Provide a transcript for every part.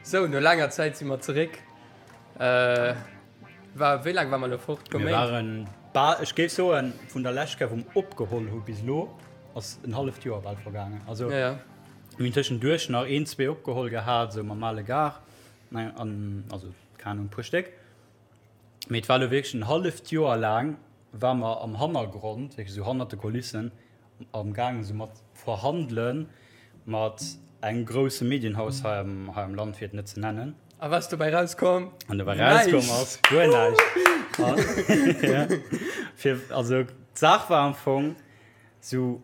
Sou, no laanger Zäit si mer zeréck. War, wéi laang war mer elo fort? Mir waren bal, ech géif soen, vun der lescht Kéier wou mer opgeholl hu bis elo ass en halleft Joer bal vergaangen. Also Ja, ja. mir hunn tëschenduerch nach een, zwee opgeholl gehat, esou mam ale Gar, an also keng Ahnung, e puer Stéck. Mee et war elo wierklech en halleft Joer laang war mer am Hannergrond, wierklech esou hannert de Kulissen, am gaangen esou mat verhandelen mat engem grousse Medienhaus hei am hei am Land, fir et net ze nennen. A wat ass dobäi rauskomm? An dobäi rauskomm ass guer näischt. Ja. Fir, also d'Saach war am Fong esou,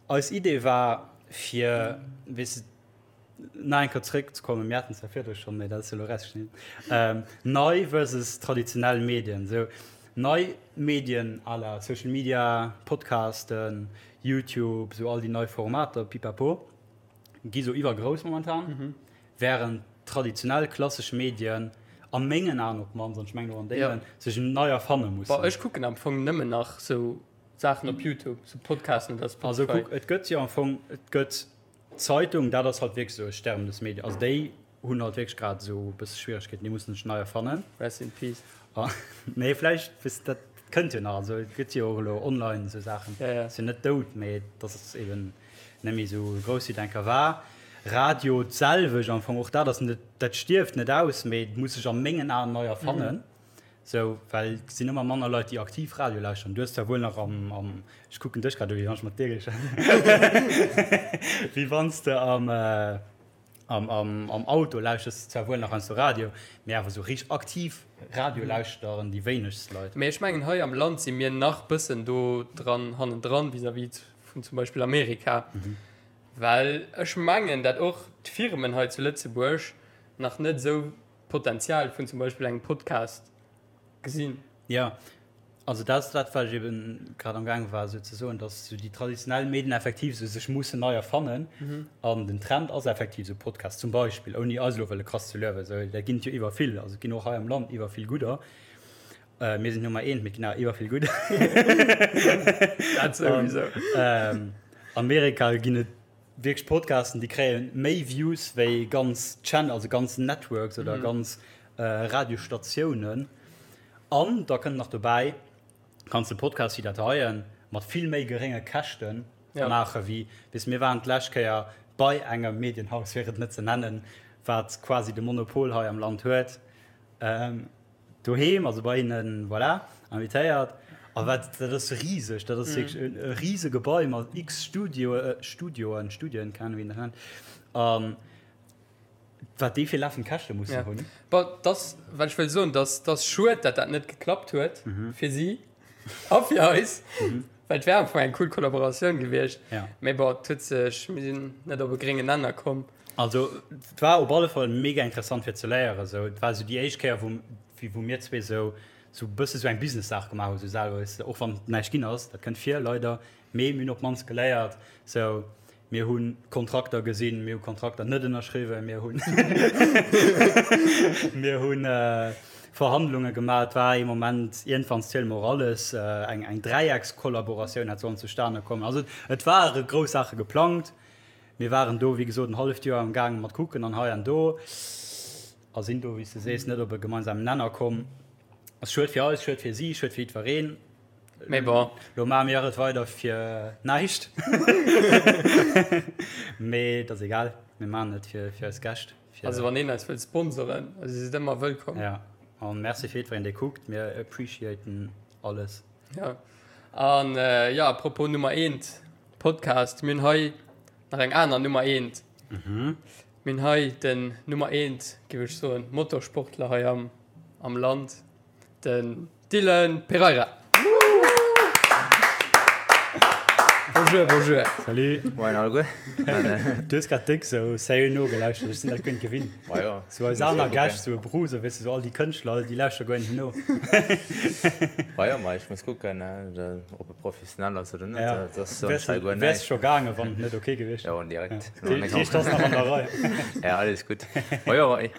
eis Idee war fir, weess de, Nach eng Kéier zréckzekommen, mir haten zwar virdru schonn, mä dat ass jo elo erausgeschnidden, nei versus traditionell Medien. Esou nei Medien à la Social Media, Podcasten, YouTube, esou all déi nei Formater, pipapo, gi sou iwwergrouss momentan, wärend traditionell klassesch Medien, a mengen Aen op d'mannst, an ech mengen och an dengen, sech nei erfanne mussen. Bon, ech kucken am Fong nëmmen nach sou Saachen op YouTube, sou Podcasten oder Spotify. Also kuck, et gëtt jo am Fong, et gëtt D'Zeitung, dat ass halt wierklech esou e sterbendes Medium. Also déi hunn halt wierklech grad esou e bësse Schwieregkeeten, déi mussen sech nei erfannen. Rest in peace. Nee, vläicht, weess de, dat kënnt jo nach. Also et gëtt jo och elo online esou Saachen. Ja, ja. Ass jo net dout, mee et ass eben net méi esou grouss wéi et eng Kéier war. Radio d'selwecht am Fong, och dat ass net, dat stierft net aus, mee et muss sech a mengen Aen nei erfannen. Sou, well et sinn ëmmer manner Leit, déi aktiv Radio lauschteren. Du hues zwar wuel nach am, am, ech kucken dech grad u wéi wann ech mat dir géif schwätzen, wéi wann s de am, am, am, am Auto lauschters de zwar wuel nach heiansdo Radio, mee awer sou richteg aktiv Radio lauschteren déi wéinegst Leit. Mee ech mengen hei am Land si mir nach bëssen do dran hannendran vis-à-vis vun zum Beispill Amerika, well ech mengen dat och d'Firmen hei zu Lëtzebuerg nach net esou d'Potenzial vun zum Beispill engem Podcast gesinn. Jo, also dat ass dat, wat ech eben grad am gaange war esou ze soen, datt esou déi traditionell Medien effektiv esou sech mussen nei erfannen. An den Trend ass effektiv esou Podcast zum Beispill, ouni eis elo wëlle krass ze luewen, esou, dat ginn et jo iwwer vill, also et ginn och hei am Land iwwer vill gudder. Mir sinn Nummer eent, mee et ginn awer iwwer vill gudder. Dat souwisou. Amerika ginn et Wierklech Podcasten déi kréien méi Views wéi ganz Channel, also ganz Networks oder ganz Radiostatiounen. An da kënnt nach dobäi, kanns de Podcast wéi dat heien mat vill méi gerénge Käschte maache wéi, weess, mir waren d'lescht Kéier bei engem Medienhaus, fir et net ze nennen, wat quasi de Monopol hei am Land huet. Doheem, also bei hinnen, voilà, invitéiert. A wat, dat ass riseg, dat ass wierklech e, e rise Gebai mat x Studio, Studioen, Studien, keng Ahnung, wéi een dat nennt. An wat déi fir lafend Käschte mussen Ja. hunn. Bon, dass, wat ech wëll soen, dass, dass schued, dat dat net geklappt huet fir si a fir eis, well et wär am Fong eng cool Kollaboratioun gewiescht. Ja. Mee bon, et huet sech, mir sinn net op e gréngen Nenner komm. Also et war op alle Fall mega interessant fir ze léieren esou. Et war esou déi éischt Kéier wou wou mir zwee esou esou bësse sou eng Business-Saach gemaach hu sou selwer, weess de, och wann näischt ginn ass, dat kënnt vir leider, mee mir hunn op d'mannst geléiert sou, mir hu Kontrakter gesinn, mir hu Kontrakter net ënnerschriwwen, mir hunn mir hu Verhandlunge gemaach. Et war ee Moment iergendwann ziele mer och alles, eng eng Dräieckskollaboratioun hätt sollen zustane kommen. Also et ware grouss Saache geplangt. Mir waren do, wéi gesot, en halleft Joer am gaange mat kucken an hei an do a sinn do, wéi s de sees, net op e gemeinsamen Nenner komm. Ass schued fir eis, schued fir si, schued fir jiddwereen. Mee bon. Lo maache mir et weider fir näischt. Mee et ass egal, mir maachen et fir eis Gäscht. Also wann een eis wëllt sponsoren, also si sidd ëmmer wëllkomm. Ja, an Merci fir jiddwereen, dee kuckt. Mir appreciaten alles. Ja, an jo, à propos Nummer eent Podcast, mir hunn hei nach eng aner Nummer eent. Mir hunn hei den Nummer eent, géif ech soen, Motorsportler hei am, am Land, den Dylan Pereira. Bonjour, bonjour. Salut. Moien alleguer. Du hues grad déck sou sérieux nogelauschtert, ech sinn dat guer net gewinnt. Ma jo. Sou eis aner Gäscht, sou e Bruce, weess de, sou all déi Kënschtler, déi lauschtere guer net no. Ma jo, ma ech muss kucken, ob e professionell ass oder net. Ja. Dat ass sonst hei guer Wäers näischt. scho gaangen, wann et net ok gewiescht Jo, direkt. Dat heescht, ass nach an der Rei. Ja, alles gutt. Ma jo, hei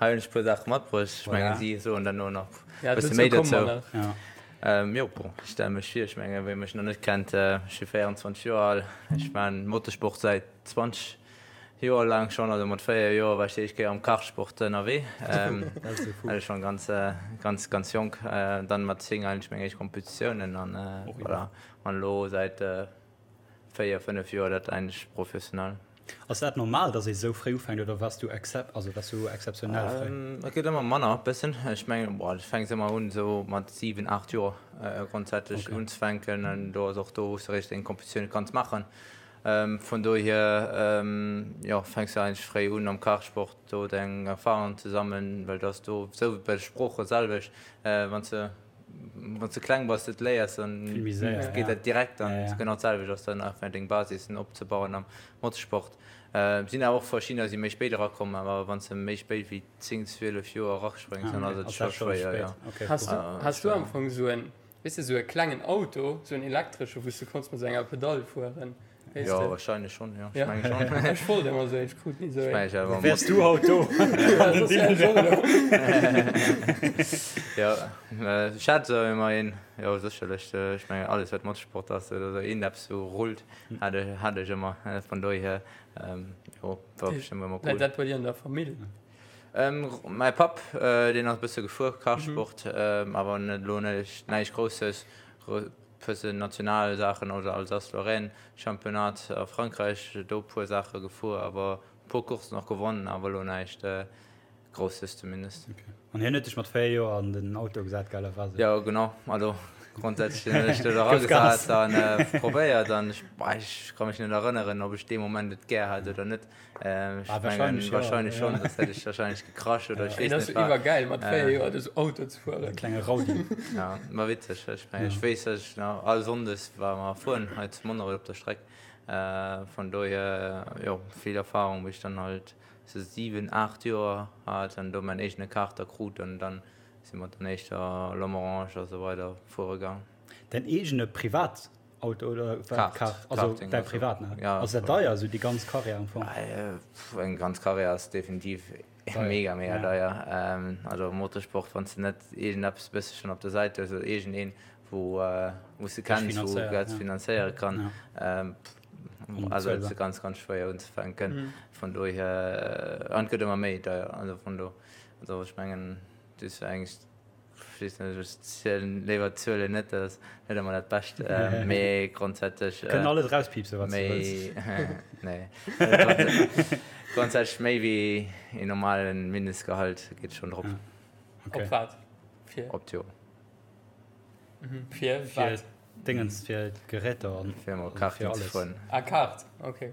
hunn ech e puer Saache matbruecht. Ech mengen, Voilà. si soen dann elo nach Ja, e bësse dozou méi komme mer dozou. nach. Ja. Jo, bon, ech stelle mech vir, ech menge wie mech nach net kennt, ech si 24 Joer al, ech maan Motorsport säit 20. Joer laang schonn, also mat 4 Joer war ech déi éischt Kéier am Kartsport ënnerwee. Also schonn ganz, ganz, ganz jonk. Dann mat 10 eigentlech meng éischt Kompetitiounen an voilà. An elo säit 4, 5 Joer dat eigentlech professionell. Ass dat normal, dass ee sou fréi ufänkt oder waars du excep, also waars du exzeptionell fréi? Et gëtt ëmmer manner bëssen. Ech mengen, bon, du fänks ëmmer un esou mat 7, 8 Joer grondsätzlech unzefänken an do ass och do wou s de eréischt deng Kompetitioune kanns maachen. Vun dohier, jo, fänks du eigentlech fréi un am Kartsport do deng Erfahrungen ze sammeln, well du ass do sou wéi bei de Sprooche selwecht, wann s de wann s de kleng bass et léiers, dann geet dat direkt an genau d'selwecht ass dann einfach deng Basissen opzebauen am Motorsport. Sinn awer och verschiddener si méi spéit erakomm, awer wann s de méi spéit wéi 10, 12 Joer eraspréngs, dann ass et scho schwéier, jo. Has du, has du am Fong esou en, weess de, esou e klengen Auto, esou en elektresche wou s de konns mat esou enger Pedall fueren? Weess jo, de? Wahrscheinlech schon, jo. Ech meng schon. Ech wollt ëmmer esou een, ech krut ni esou een. Ech meng, Wäers du haut do? Jo, ech hat esou ëmmer een, jo sécherlech. Ech mengen alles wat Motorsport ass oder esou iergendeppes wou rullt, hat ech, hat ech ëmmer. Vun dohier, jo, war bestëmmt ëmmer cool. Läit dat bei dir an der Famill? Mäi Papp, deen ass e bësse gefuer, Kartsport, awer net elo näischt Grousses. Bëssen national Saachen oder Alsace-Lorraine Championnat a Frankräich, do puer Saache gefuer, awer puer Coursen och gewonnen, awer elo näischt Grousses zumindest. Okay. An hien huet dech mat 4 Joer an den Auto gesat, gell, oder wat? Jo, genau. Also grondsätzlech hunn ech do eragesat an probéiert an ech, ech ka mech net erënneren, ob ech dee Moment et gär hat oder net. Ech ah, mengen, wahrscheinlech schon, sonst hätt ech wahrscheinlech gekrasch oder ech weess net wat. Iwwergäil mat 4 Joer esou Auto ze fueren. Klenge Raudi. Ja, war witzeg. Ech mengen, ech weess, dass ech nach all Sonndes war mer fueren hei zu Monnerech op der Streck. Vun dohier, jo, vill Erfahrung, wéi ech dann halt sou 7, 8 Joer hat an do mäin eegene Kaarter krut an dann si mer dann éischter Lomerange a sou weider fuere gaang. Däin eegene Privat Auto oder wat? Kart, also däi privaten? Ja. Ass dat deier, esou déi ganz Karriär am Fong? Eng ganz Karriär ass definitiv mega, mega deier. Also am Motorsport, wann s de net iergendeppes e bësselchen op der Säit hues oder iergendeen, wou wou s de kenns, wou dat finanzéiere kann, also et ass ganz, ganz schwéier unzefänken. Vun dohier, an et gëtt ëmmer méi deier, also vun do, also ech mengen, du hues eigentlech Ech weess net, ech zielen léiwer d'Zuelen net, dat ass net ëmmer dat Bescht, mee grondsätzlech. Kënnen alles erauspiipsen, wat s du wëlls. Nee, grondsätzlech méi wéi een normale Mindestgehalt geet schonn drop. Op wat? Fir? Op d'Joer. Fir wat? Fir Dingens, fir d'Geräter an fir emol Karten ze fueren. Ah, Kart, okay.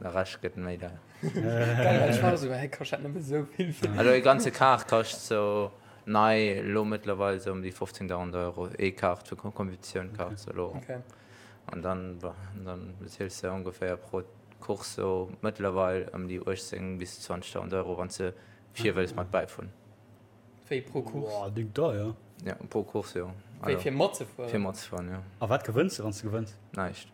De Rescht gëtt méi deier. Geil, well ech war esou, hä, kascht dat nëmme esou vill? Also e ganze Kart kascht sou nei elo mëttlerweil sou ëm déi 15.000 Euro, ee Kart fir Competitioun-Kart sou elo. An dann, bon, dann beziels de ongeféier pro Course sou mëttlerweil ëm déi 18 bis 20.000 Euro, wann s de vir wëlls mat bäifueren. Wéi pro Course? Boah, déck deier. Jo, pro Course, jo. Wéi fir matzefueren? Fir matzefueren, jo. A wat gewënns de, wann s de gewënns? Näischt.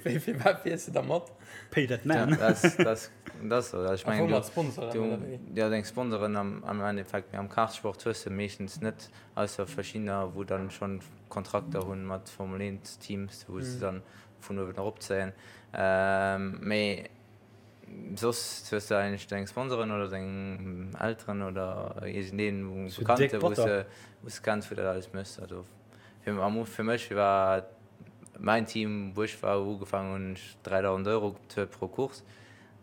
Wéi fir wat fiers de da mat? Pay that man. Dat ass esou. Ech mengen, mat Sponsoren oder wéi? Jo, deng Sponsoren am Endeffekt. Mee am Kartsport hues de meeschtens net, ausser verschiddener, wou dann schonn Kontrakter hunn mat Formel 1 Teams, wou se dann vun uewen eropzéien. Mee soss hues de eigentlech deng Sponsoren oder deng Elteren oder iergendeen Bekannte, wou s de kenns, wou dat alles méchs. Also fir mech war Mäin Team wou ech war ugefaangen hunn ech 3.000 Euro bezuelt pro Course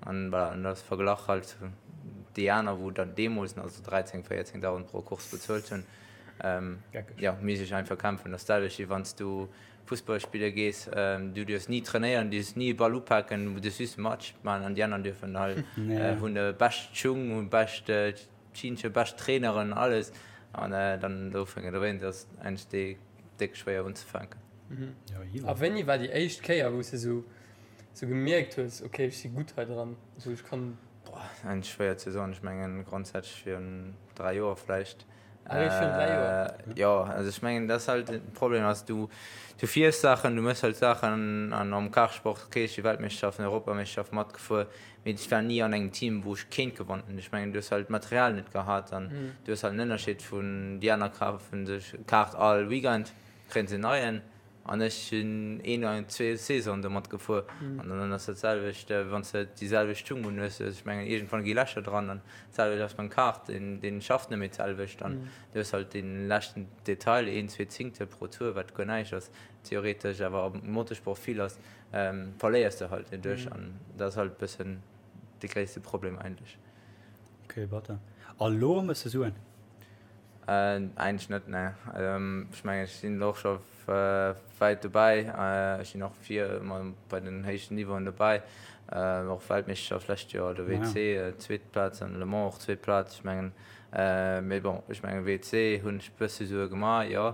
an voilà, an dat verglach halt zu déi aner wou dann deemools nach esou 13, 14.000 pro Course bezuelt hunn. Jo, misst ech einfach kämpfen. Dat ass d'selwecht wéi wann s du Fussball spille gees, du dierfs ni trainéieren, du dierfs ni e Ball upaken, du dierfs just e Match maachen an déi aner dierfen halt, hunn de bescht Schung, hunn bescht Chinsche, bescht Traineren, alles an dann dofir dowéinst ass eigentlech déi déck schwéier unzefänken. A wéini war déi éischt Kéier, wou s de sou sou gemierkt hues, ok, ech si gutt hei dran, sou ech kann. Boah, eigentlech schwéier ze soen. Ech mengen grondsätzlech virun 3 Joer vläicht. Ah, eréischt virun 3 Joer? Jo, also ech mengen dat ass halt de Problem ass, du du fiers Saachen, du méchs halt Saachen an am Kartsport, ok, ech si Weltmeeschterschaften, Europameeschterschaft matgefuer, Mee ech war ni an engem Team, wou ech kéint gewonnen. Ech mengen, du hues halt d'Material net gehat an du hues halt en Ënnerscheed vun déi aner kafen sech e Kart all Weekend, kréien se en neien. An ech sinn een oder zwee Saisonen domat gefuer. An dann ass dat selwecht, wann s de déi selwecht Schung un hues. Ech mengen, iergendwann gi Lächer dran. An d'selwecht ass beim Kart, deen, deen schafft net méi d'selwecht. An du hues halt dee leschten Detail, een, zwee Zingtel pro Tour, wat guer näischt ass theoretesch, awer am Motorsport vill ass, verléiers de halt doduerch. An dat ass halt e bëssen de gréisste Problem eigentlech. Ok, batter. A lo méchs de Suen? Eigentlech net, nee. Ech mengen, ech sinn elo och scho wäit dobäi. Ech sinn och vir ëmmer bei den héichten Niveauen dobäi. Och Weltmeeschterschaft lescht Joer, de WC, zweet Plaz an Le Mans och zweet Plaz. Ech mengen, mee bon, ech mengen WC hunn ech bësse Sue gemaach, jo.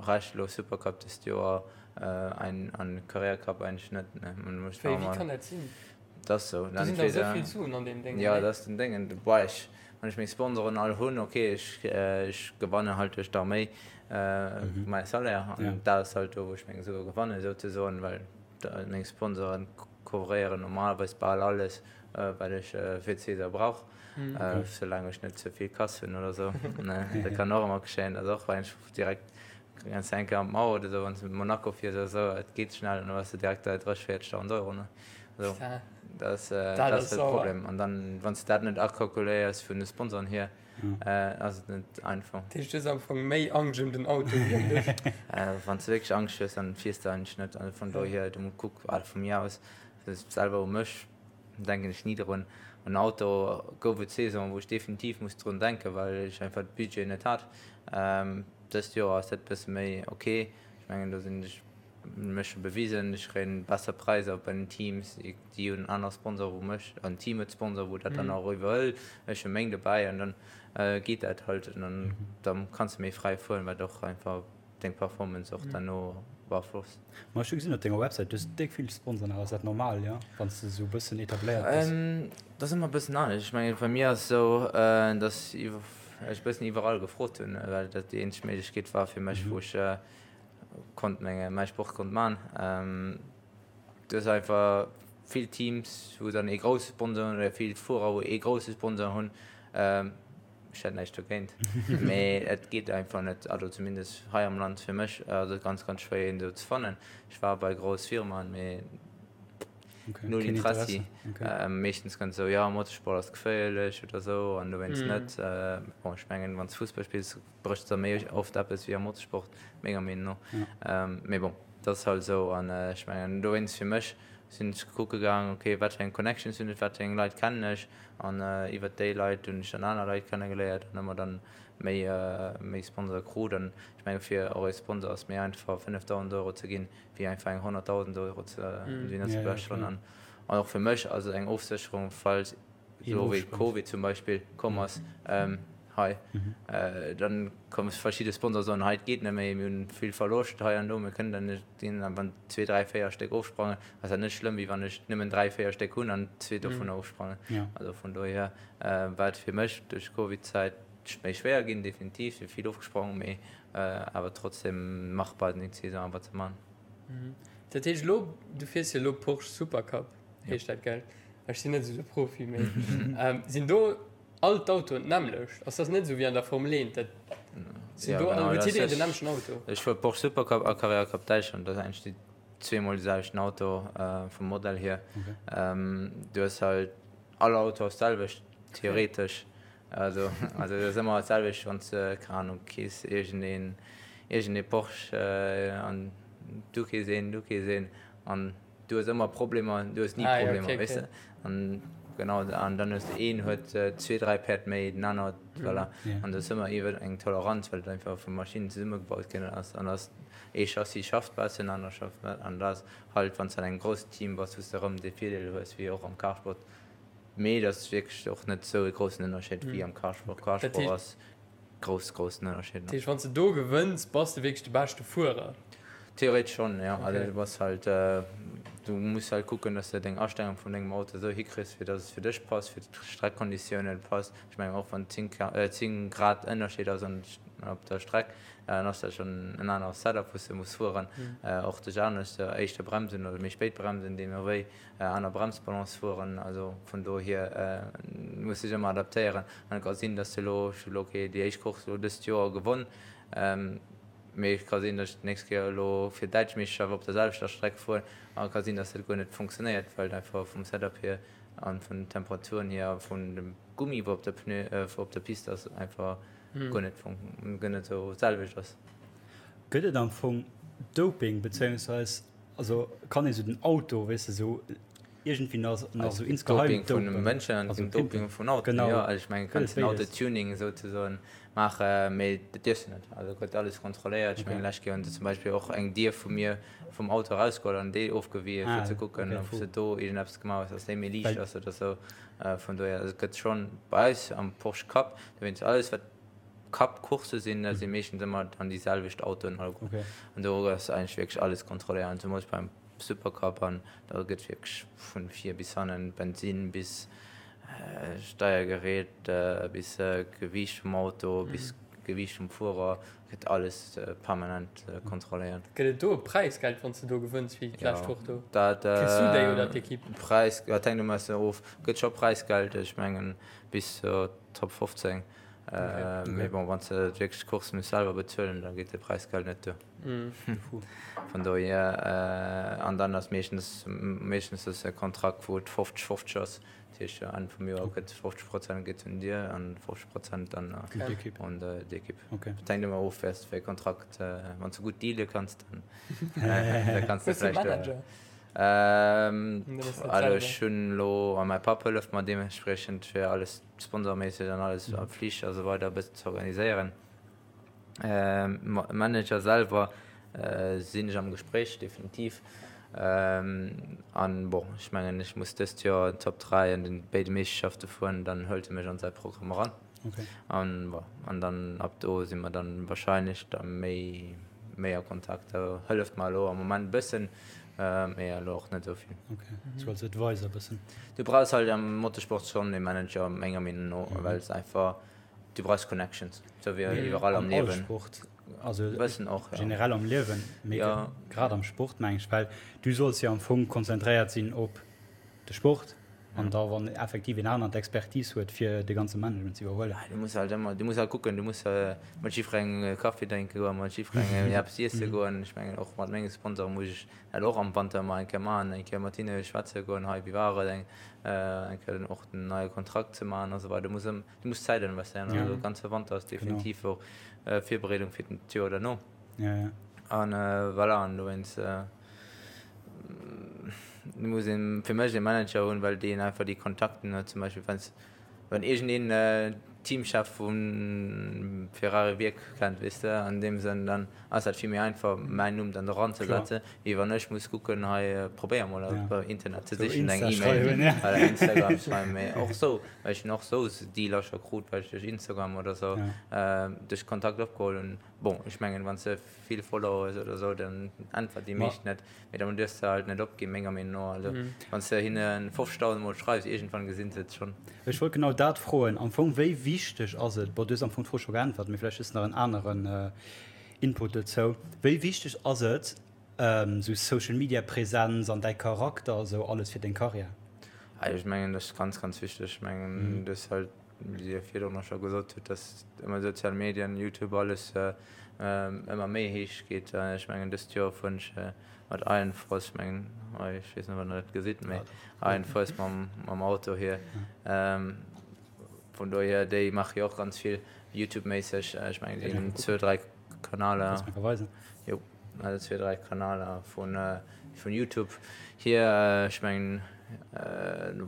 Rescht elo Supercup dëst Joer an Carrera Cup eigentlech net, nee. Wéi kann dat sinn? Dat ass sou. Do sinn der esou vill Suen an deem Déngen, Jo, dat ass den Déngen. Boah, ech, wann ech meng Sponsoren all hunn, ok, ech, ech gewanne halt duerch d'Arméi mäi Salaire an dat ass halt do, wou ech meng Sue gewannen, souzesoen, well meng Sponsoren couvréieren normalerweis bal alles, wat ech fir d'Saison brauch, soulaang ech net ze vill Kass hunn oder sou. Dat kann och ëmmer geschéien, dat ass och eigentlech direkt Ganz eng Kéier an d'Mauer oder esou, wann s de mat Monaco fiers oder esou, et geet schnell an da bass de direkt bei 30, 40.000 Euro, ne? Also, dat ass, dat ass de Problem. An dann, wann s de dat net akalkuléiers vun de Sponsoren hier, ass et net einfach. Dat heescht, du hues am Fong méi Angscht ëm den Auto wéi ëm dech? Wann s de wierklech Angscht hues, dann fiers de eigentlech net. Also vun dohier, du kuck, also vu mir aus, selwer u mech denken ech ni drun. En Auto gouf et Saison, wou ech definitiv muss drun denken, well ech einfach de Budget net hat. Dëst Joer ass dat bësse méi ok. Ech mengen do sinn ech mech scho bewisen. Ech kréien besser Präisser bei den Teams. Déi hunn aner Sponsore wou mech, an d'Team huet Sponsor wou dat dann och iwwerhëlt. Ech hu meng dobäi an dann geet dat halt an dann da kanns de méi fräi fueren, wat och einfach deng Performance och derno beaflosst. Ma ech hu gesinn op denger Websäit, du hues déck vill Sponsoren awer. Ass dat normal, jo, wann s de esou e bëssen etabléiert bass? Dat ass ëmmer e bëssen anescht. Ech mengen bei mir ass et esou, datt iwwer. ech bëssen iwwerall gefrot hunn, well dat déi eenzeg Méiglechkeet war fir mech, wou ech konnt menge mäi Sport konnt man. Du hues einfach vill Teams, wou dann ee grousse Sponsor hunn oder vill Fuerer, wou ee grousse Sponsor hunn. Ech hätt näischt dogéint, mee et geet einfach net, also zumindest hei am Land fir mech ass et ganz, ganz schwéier een esou ze fannen. Ech war bei grouss Firmaen, mee Okay, Null Interessi. Okay. Ähm, meeschtens ganz so, ja, Motorsport ass geféierlech oder so an dowéinst mm. net. Äh, bon, ech mengen, wann du Fussball spills, bréchs der méi oft eppes wéi am Motorsport, menger Meenung no. Ja. Ähm, mee bon, dat ass halt so an äh, ech mengen, dowéinst fir mech sinn ech kucke gaang, okay, wat fir eng Connections hunn ech, wat fir eng Leit kennen ech an äh, iwwer déi Leit hunn ech dann aner Leit kennegeléiert an ëmmer dann méi, äh, méi Sponsor krut an ech menge fir och e Sponsor ass méi einfach 5.000 Euro ze ginn wéi einfach eng 100.000 Euro ze mm. ze blechen an an och fir mech also eng Ofsécherung falls so wéi Covid zum Beispill komm ass ähm, hei mhm. äh, dann komme verschiedene Sponsor soen hei geht net méi mir hunn vill Verloscht hei an do mir kënnen dann net ginn an wann zwee dräi véier Stéck ofsprangen ass dat net schlëmm wéi wann ech nëmmen dräi véier Stéck hunn an zwee dovun mhm. ofsprangen ja. also vun dohier äh, war et fir mech duerch Covid-Zäit méi schwéier ginn definitiv si vill ofgesprong méi Awer trotzdem machbar den Saison awer ze man. Dat heescht elo, du fiers jo elo Porsche Supercup heescht dat gell? Ech sinn net esou de Profi mee sinn do all d'Autoen d'nämmlecht? Ass dat net esou wéi an der Formel 1, dat sinn do all, huet jiddereen den nämmlechten Auto? Ech fuer Porsche Supercup a Carrera Cup Däitschland, dat ass eigentlech déi zweemol de selwechten Auto vum Modell hier. Du hues halt all Auto ass d'selwecht theoretesch. Also, also dat ass ëmmer dat selwecht, wann s de, keng Ahnung, kees iergendeen, iergendee Porsche an du kees een, du kees een an du hues ëmmer Problemer, du hues ni ah, Problemer, ja, okay, weess de? An genau, an dann hues de een huet zwee, dräi Päerd méi, den aner huet, mm. voilà. Yeah. An do ass ëmmer iwwer eng Toleranz, well et einfach vu Maschinen zesummegebaut ginn ass. An ass ee Chassis schafft besser, en aner schafft net. An dat ass halt, wann s de an engem groussen Team bass, wou s de erëm dee Virdeel hues, wéi och am Carsport, Mee et ass wierklech och net esou e groussen Ënnerscheed wéi am Carsport. Carsport ass grouss, groussen Ënnerscheed. Dat heescht, wann s de do gewënns, bass de wierklech de beschte Fuerer? Theoretesch schonn, jo. Also du bass halt, du muss halt kucken, dass de deng Astellung vun dengem Auto esou hikriss, fir dass et fir dech passt, fir d'Streckkonditiounen passt. Ech mengen och wann 10, 10 Grad Ënnerscheed ass an op der Streck, dann ass dat schonn en anere Setup, wou s de muss fueren. Och dech anescht, éischter bremsen oder méi spéit bremsen, deemno wéi. Aner Bremsbalance fueren, also vun dohier muss sech ëmmer adaptéieren an et ka sinn, dass de elo, ech hu elo okay déi éischt Course elo dëst Joer gewonn. Mee et ka sinn, datt ech d'nächst Kéier elo fir d'däitsch Meeschterschaft op der selwechter Streck fueren an et ka sinn, datt dat guer net funktionéiert, well et einfach vum Setup hier a vun den Temperaturen hier a vun dem Gummi, wou op der Pneu, wou op der Pist ass, einfach guer net fun, guer net esou d'selwecht ass. Gëtt et am Fong Doping, bezéiungsweis also kann ee sou den Auto, weess de, sou iergendwéi nach nach sou insgeheim Doping vun de dopen? Mënschen an Also Doping pimpen. vun Autoen, Genau. jo. Also ech mengen, Gëtt kanns et den béides? Autotuning souzesoen maachen, mee dat dierfs de net. Also gëtt alles kontrolléiert. Ech mengen, Okay. lescht Kéier hunn se zum Beispill och eng Dier vu mir vum Auto erausgeholl an déi ofgewien, fir Ah, ze kucken, okay, ob se do iergendeppes gemaach hues, dass déi méi liicht Well ass oder sou. Vun dohier, also et gëtt schonn bei eis am Porsche Cup, dowéinst alles wat Cup-Coursse sinn, dat si meeschtens ëmmer dann déi selwecht Autoen alleguer. Okay. An do ass eigentlech wierklech alles kontrolléiert, an zemools beim Supercup an da gëtt wierklech vun vir bis hannen, Bensinn bis Steiergerät bis Gewiicht vum Auto bis Gewiicht vum Fuerer, gëtt alles permanent kontrolléiert. Gëtt et do e Präisgeld wann s de do gewënns wéi d'lescht Woch do? Dat Kriss du déi oder d'Ekipp? Präis, dat hänkt ëmmer e bëssen of. Gëtt scho Präisgeld, ech mengen bis zur Top 15. Mee bon, wann s de wierklech d'Course muss selwer bezuelen, da geet de Präisgeld net duer. Vun dohier, an dann ass meeschtens, meeschtens ass e Kontrakt, wou et 50, 50 ass. Dat heescht, Enn vum Joer gëtt 50 Prozent geet un dir an 50 Prozent dann un d'Ekipp. Et hänkt ëmmer of, wéi s de fir e Kontrakt, wann s de gutt deale kanns, dann da kanns de vläicht. Also ech hunn elo, a mäi Papp hëlleft mer deementspriechend fir alles sponsorméisseg an alles a Flich a sou weider e bëssen ze organiséieren. Manager selwer sinn ech am Gespréich, definitiv. An bon, ech mengen, ech muss dëst Joer Top 3 an den béide Meeschterschafte fueren, dann hëlt e mech an säi Programm eran. An bon, an dann ab do si mer dann wahrscheinlech da méi, méi a Kontakt. Da hëlleft mer elo am Moment e bëssen, mee elo och net esou vill. Okay, sou als Advisor e bëssen. Du brauchs halt am Motorsport schonn e Manager, menger Meenung no, well s einfach, Du brauchs Connections, sou wéi iwwerall am Liewen. Am Sport, also bëssen och, ja. Generell am Liewen, mee ja. grad am Sport meng ech, well du solls jo am Fong konzentréiert sinn op de Sport an da wann effektiv een aneren d'Expertise huet fir de ganze Management ze iwwerhuelen. Du muss halt ëmmer, du muss halt kucken, du muss mat jiddwerengem Kaffi drénke goen, mat jiddwerengem eppes iesse goen. Ech mengen och mat menge Sponsoren muss ech dat och am Wanter ëmmer eng Kéier maachen, eng Kéier mat hinne schwätze goen, hei wéi war et, eng Kéier och den neie Kontrakt ze maachen a sou weider. Du muss ëm. Du muss Zäit investéieren, ja. Also ganze Wanter ass definitiv och äh, Virbereedung fir den d'Joer derno. Ja, ja. An äh, voilà, an dowéinst äh, muss een fir mech e Manager hunn, well deen einfach déi Kontakten huet, zum Beispill wenn's wann iergendeen äh, Teamchef vun Ferrari Wierk kennt, weess de, an deem Sënn, dann ass dat vill méi einfach mäin Numm dann doran ze setzen, wéi wann ech muss kucken, hei probéier mol op Internet ze sichen, eng E-Mail oder Instagram schreiwen, mee och sou, well ech hunn och sou Dealer scho krut, well ech duerch Instagram oder sou duerch Kontakt opgeholl hunn. Bon, ech mengen, wann s de vill Follower hues oder sou, dann äntwert déi meescht net, mee dann duerfs de halt net opginn, menger Meenung no. Also wann s de hinne 50.000 mol schreifs, iergendwann gesinn se et schonn. Ech wollt genau dat froen. Am Fong, wéi wichteg ass et, bon, du hues am Fong d'Fro scho geäntwert, mee vläicht hues de nach en aneren Input dozou, wéi wichteg ass et, esou Social Media Präsenz an däi Charakter a sou alles fir deng Karriär? Ech mengen, dat ass ganz, ganz wichteg. Ech mengen, du hues halt, wéi Dir virdrun och scho gesot hutt, dass ëmmer sozial Medien, Youtube, alles ëmmer méi héich geet. Ech mengen, dëst Joer fueren ech mat Iron Force, ech mengen, hei, ech weess net, wann Der dat gesitt, mee Iron Force mam, mam Auto hier. Vun dohier, déi maache jo och ganz vill Youtube-méisseg. Ech mengen, déi hunn zwou, dräi Kanaler. Kanns mer weisen? Jo, also zwee, dräi Kanaler vun, vun Youtube hier. Ech mengen,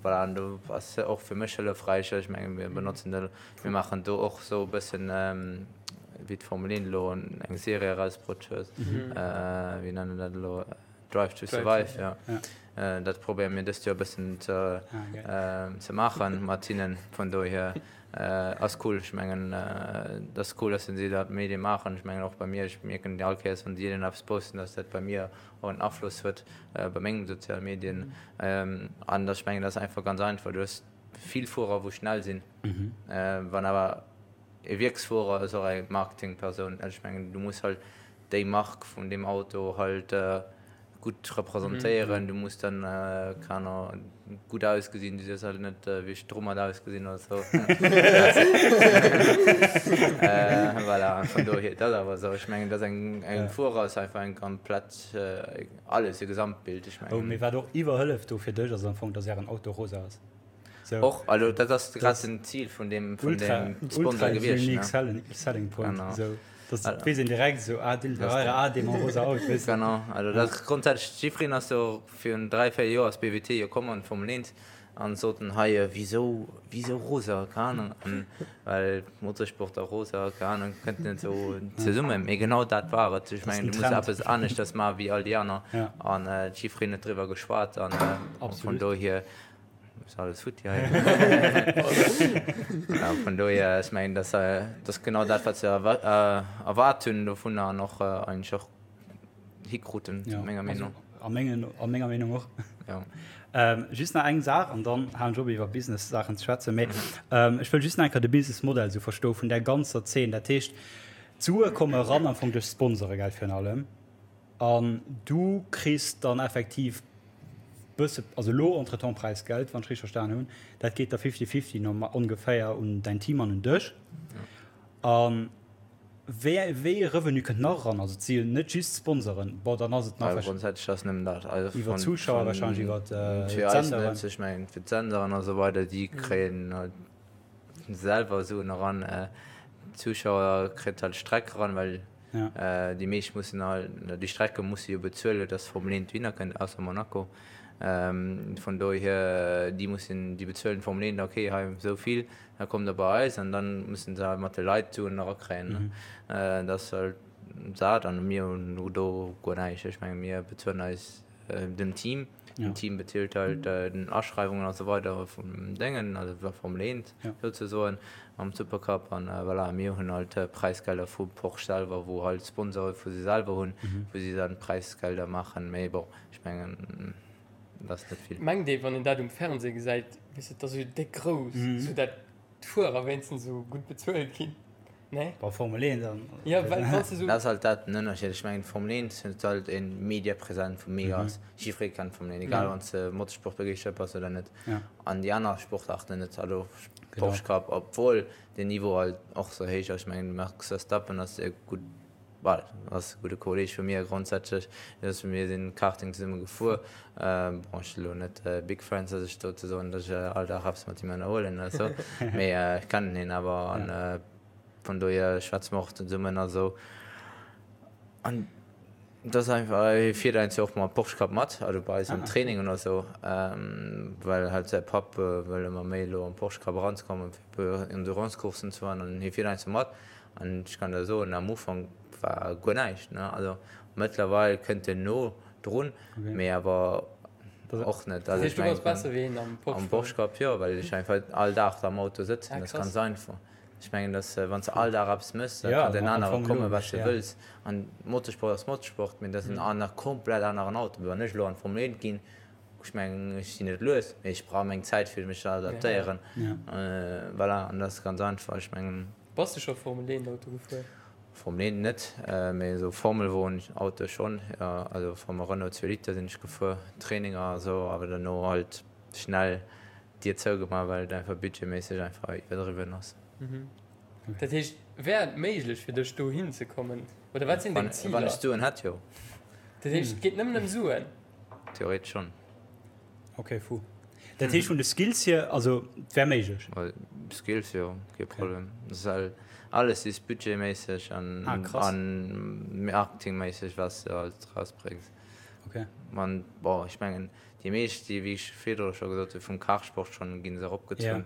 voilà, an do ass se och fir mech hëllefräich. Ech mengen, mir benotzen de, mir maachen do och esou e bëssen, wéi d'Formel 1 elo eng Serie erausbrutt huet, wéi nennen dat elo? Drive to Survive, ja. Dat probéiere mir dëst Joer e bëssen ze, ze maachen mat hinnen. Vun dohier ass cool. Ech mengen, et ass cool, dass si dat Medie maachen. Ech mengen och bei mir, ech mierken all Kéiers, wann si eppes posten, dass dat bei mir och en Afloss huet bei mengem soziale Medien. An ech mengen, dat ass einfach ganz einfach. Du hues vill Fuerer, wou schnell sinn. Wann awer e Wierksfuerer ass och eng Marketingpersoun. Ech mengen, du muss halt déi Mark vun deem Auto halt. gutt representéieren, du muss dann, keng Ahnung, gutt ausgesinn, du dierfs halt net wéi ech domat ausgesinn oder sou. Voilà, an vun dohier, dat ass awer esou. Ech mengen, dat ass eng, eng Fuerer ass einfach eng komplett, alles, e Gesamtbild, ech mengen. Oh, mee wat och iwwerhëlleft do fir dech ass am Fong, dass ären Auto rosa ass. So. Och, also dat ass grad den Zil vun deem, vun deem Sponsor gewiescht. Ultra unique selling, selling point. Genau. So, das also, weess een direkt so, ah, den Ferrari, ah, dee mam rosa Auto, weess du. Genau, also dat grondsätzlech, jiddwereen ass jo virun 3, 4 Joer ass BWT jo komm an d'Formel 1 an soten hei, wisou, wisou rosa, keng Ahnung, an well Motorsport a rosa, keng Ahnung, kënnt net esou zesummen, mee genau dat war et. Ech mengen, du muss eppes aneschters maachen wéi all déi aner an jiddwereen huet driwwer geschwat an vun dohier Ist alles futti hei. Ja, vun dohier, ech mengen, dass, äh, dass genau dat, wat se erwa äh, erwaart hunn dovunner an och äh, eigentlech och hikruten, ja, menger Meenung. Also, a, mengen, a menger Meenung och. Ja. Ähm, just nach eng Saach an dann halen ech op iwwer Business-Saachen ze schwätzen. Mee, ähm, ech wëll just nach eng Kéier de Business-Modell sou verstoe vun där ganzer Zeen. Dat heescht, d'Sue komme ran am Fong duerch Sponsore, gell, virun allem. An du kriss dann effektiv bësse, also elo entretemps Präisgeld, wann ech richteg verstan hunn. Dat geet da fifty-fifty normal ongeféier un däin Team an un dech. A wéi wéi ee Revenu kënnt nach eran? Also et si jo net just Sponsoren. Bon, dann ass et nach Also grondsätzlech ass nëmmen dat. Also iwwer d'Zuschauer wahrscheinlech, iwwer fir eis d'Senderen. net, ech mengen fir d'Senderen a sou weider, déi kréien halt selwer Suen eran. D'Zuschauer kritt halt d'Streck eran, well Ja. Déi meescht mussen halt, déi Strecke musse jo bezuelen, dass Formel 1 dohinner kënnt, ausser Monaco. Vun dohier, déi mussen, déi bezuelen d'Formel 1, okay, hei esou vill, da kommt der bei eis an dann mussen se halt mat de Leit d'Suen erakréien. Dat ass halt dat an mir hunn do guer näischt. Ech menge mir bezuelen eis dem Team. Den Team bezilt halt den Aschreiwungen a sou weider vum Déngen, also der Formel 1 souzesoen, am Supercup. An voilà, mir hunn halt Präisgelder vu Porsche selwer, wou halt Sponsore vu si selwer hunn, wou si dann Präisgelder maachen. Mee bon, ech mengen, dat ass net vill. Mengt ee, wann een dat um Fernseh gesäit, weess de, et ass esou déck grouss, esou dat d'Fuerer wéinstens esou gutt bezuelt ginn. Nee? Bei Formel 1 dann. Ja, well wann s de sou. Dat ass halt dat den Ënnerscheed. Ech mengen d'Formel 1 huet halt e Mediapräsent wou mega ass. Jiddweree kennt d'Formel 1, egal wann s de Motorsportbegeeschtert bass oder net. An déi aner Sportaarten net. Also Porsche Cup, obwuel den Niveau halt och sou héich ass. Ech mengen de Max Verstappen ass e gutt, well ass e gudde Kolleeg vu mir grondsätzlech. Mir sinn Karting zesumme gefuer. Bon, ech si lo net big friends, datt ech do ze soen, datt ech all Dag eppes mat him ënnerhuelen oder sou, mee ech kennen hien awer an vun dohier schwätze mer och zesummen a sou. An et ass einfach, hie fiert eigentlech och mam Porsche Cup mat, also bei eis am Training oder sou, well halt säi Papp wëll ëmmer méi elo am Porsche Cup eranzekommen, fir e puer Endurance-Courssen ze fueren an hie fiert eigentlech mat. An ech kann der soen, am Ufank war guer näischt, ne, also mëttlerweil kënnt en no drun, mee awer och net. Dat heescht, du bass besser wéi hien am Porsche? Am Porsche Cup jo, well ech einfach all Dag am Auto sëtzen, dat ass ganz einfach. Ech mengen, dass wann s de all Dag eppes méchs, da kann den anere komme wat s de wëlls. An Motorsport ass Motorsport, mee dat ass en aner, komplett aneren Auto. Wann ech elo an d'Formel 1 ginn, ech mengen, ech sinn net lues, mee ech brauch meng Zäit fir mech ze adaptéieren. Voilà, an dat ass ganz einfach. Ech mengen. Bass de scho Formel 1 Auto gefuer? Formel 1 net, mee esou Formelwon Auto schonn, jo. Also Formel Renault 2 Liter sinn ech gefuer, Traininger a sou, awer duerno halt schnell d'Dier zougemaach, well et einfach budgetméisseg einfach iwwerdriwwen ass. Dat heescht, wär et méiglech fir dech dohin ze kommen oder wat sinn deng Ziler? Wann ech Suen hätt, jo. Dat heescht, et geet nëmmen ëm Suen? Theoretesch schonn. Ok, fou. Dat heescht vun de Skills hier, also et wär méiglech? Skills jo, kee Problem. Alles is budgetméisseg an marketingméisseg wat s de halt rausbréngs. Ok. An bon, ech mengen déi meescht déi, wéi ech virdru scho gesot hunn, vum Kartsport schonn ginn se eropgezunn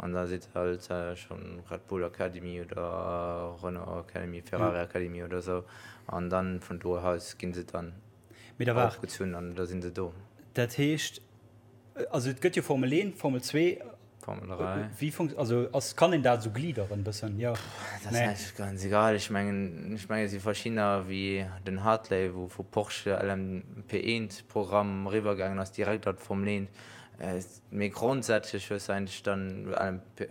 an da sidd halt schonn Red Bull Academy oder Renault Academy, Ferrari Academy oder esou an dann vun do aus ginn se dann Mee da waart. Opgezunn an da sinn se do. Dat heescht, also et gëtt jo Formel 1, Formel 2. Formel 3. Wéi funkt, also ass, kann een dat esou gliederen bëssen? Jo. Dat ass eigentlech ganz egal. Ech mengen, ech mengen et si verschiddener wéi den Hartley, wou vu Porsche LMP1 Programm eriwwer gaangen ass direkt an d'Formel 1. Mee grondsätzlech hues de eigentlech dann LMP,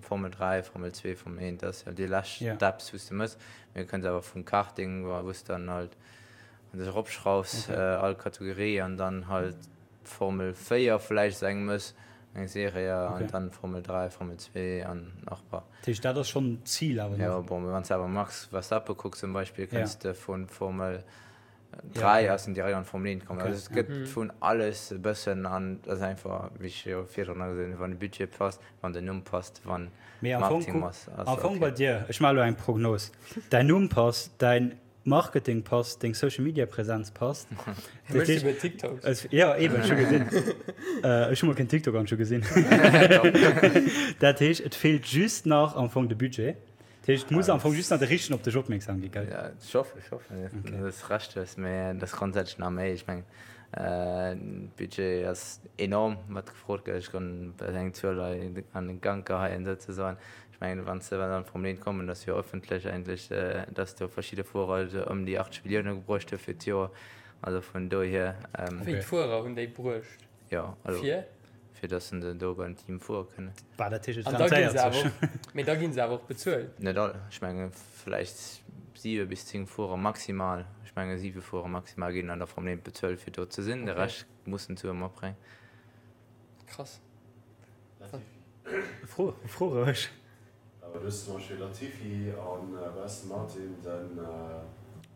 Formel 3, Formel 2, Formel 1, dat ass jo déi lescht Steps wou s de mëss. Mee du kënns awer vum Karting, wou s de dann halt. Wann du eropschraufs, all Kategorie an dann halt Formel 4 vläicht esou eng mëss, eng Serie an dann Formel 3, Formel 2 an nach e paar. Dat heescht, dat ass schonn d'Zil awer nach? Jo, bon, mee wann s de awer Max Verstappen kucks zum Beispill, kënns de vu Formel 3 ass en direkt an d'Formel 1 komm. Also et gëtt vun alles e bëssen an et ass einfach, wéi ech jo virdrun nach gesot hunn, wann de Budget passt, wann den Numm passt, wann Mee am Fong, Marketing kuck, ass, ass am Fong bei okay. dir, ech maache elo eng Prognos, däin Numm passt, däin Marketing passt, deng Social Media Präsenz passt. Hie mécht souguer TikToks. Es, ja, eben, ech hu gesinn. Ech hu mol keen TikTok an ech hu gesinn. Dat heescht, et feelt just nach am Fong de Budget. Dat heescht, et muss am Fong just nach de Richtegen op dech opmierksam ginn, gell? Ja, ech hoffen, ech hoffen, dass du Recht hues, mee dat ass grondsätzlech nach méi. Ech mengen, Budget ass enorm, wat gefrot gëtt. Ech kann eng Zuel hei an de Gank geheien, souzesoen. Ech mengen, wann se dann vum Leen kommen, dat ass jo ëffentlech eigentlech, datt do verschidde Fuerer esou ëm déi 80 Millioune gebruecht hu fir d'Joer. Also vun dohier. Wéi d'Fuerer hunn déi bruecht? Jo, also. Fir? Fir datt se do beim Team fuere kënnen. Bah, dat heescht, et An da ginn se awer och, mee da ginn se awer och bezuelt. Net all. Ech menge vläicht siwe bis 10 Fuerer maximal. Ech menge siwe Fuerer maximal ginn an der Formel 1 bezuelt, fir do ze sinn. De Rescht mussen d'Sue matbréngen. Krass. Fro, fro roueg. Awer du hues zum Beispill Latifi an bei Aston Martin den.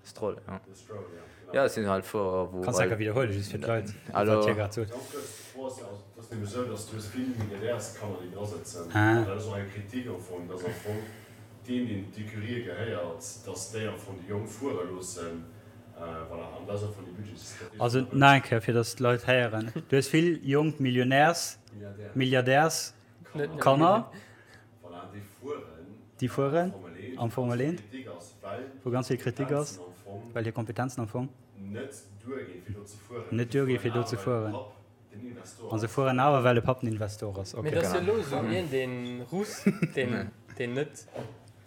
Stroll, ja. De Stroll, ja, genau. Ja, et sinn halt Fuerer, wou. Kanns enker widderhuelen, just fir d'Leit, wat hie grad sot. Ganz kuerz, d'Fro ass ja, also et ass nämlech esou, datt du hues vill Milliardärskanner, déi dra sëtzen. An dat ass och eng Kritik am Fong, datt am Fong deen, deen d'Ecurië gehéiert, datt déi am Fong déi Jonk fuere loossen. Voilà, an dat ass am Fong déi Budgetsstrategie. Also nach eng Kéier, fir datt d'Leit héieren, Du hues vill jonk Millionärs-, Milliardärs-, Kanner, déi fueren am Formel 1, wou ganz vill Kritik ass, well hir Kompetenzen am Fong net duerginn, fir do ze fueren. A se fueren awer, well de Papp den Investor ass. Mee et ass jo elo esou een, dee Russ, deen net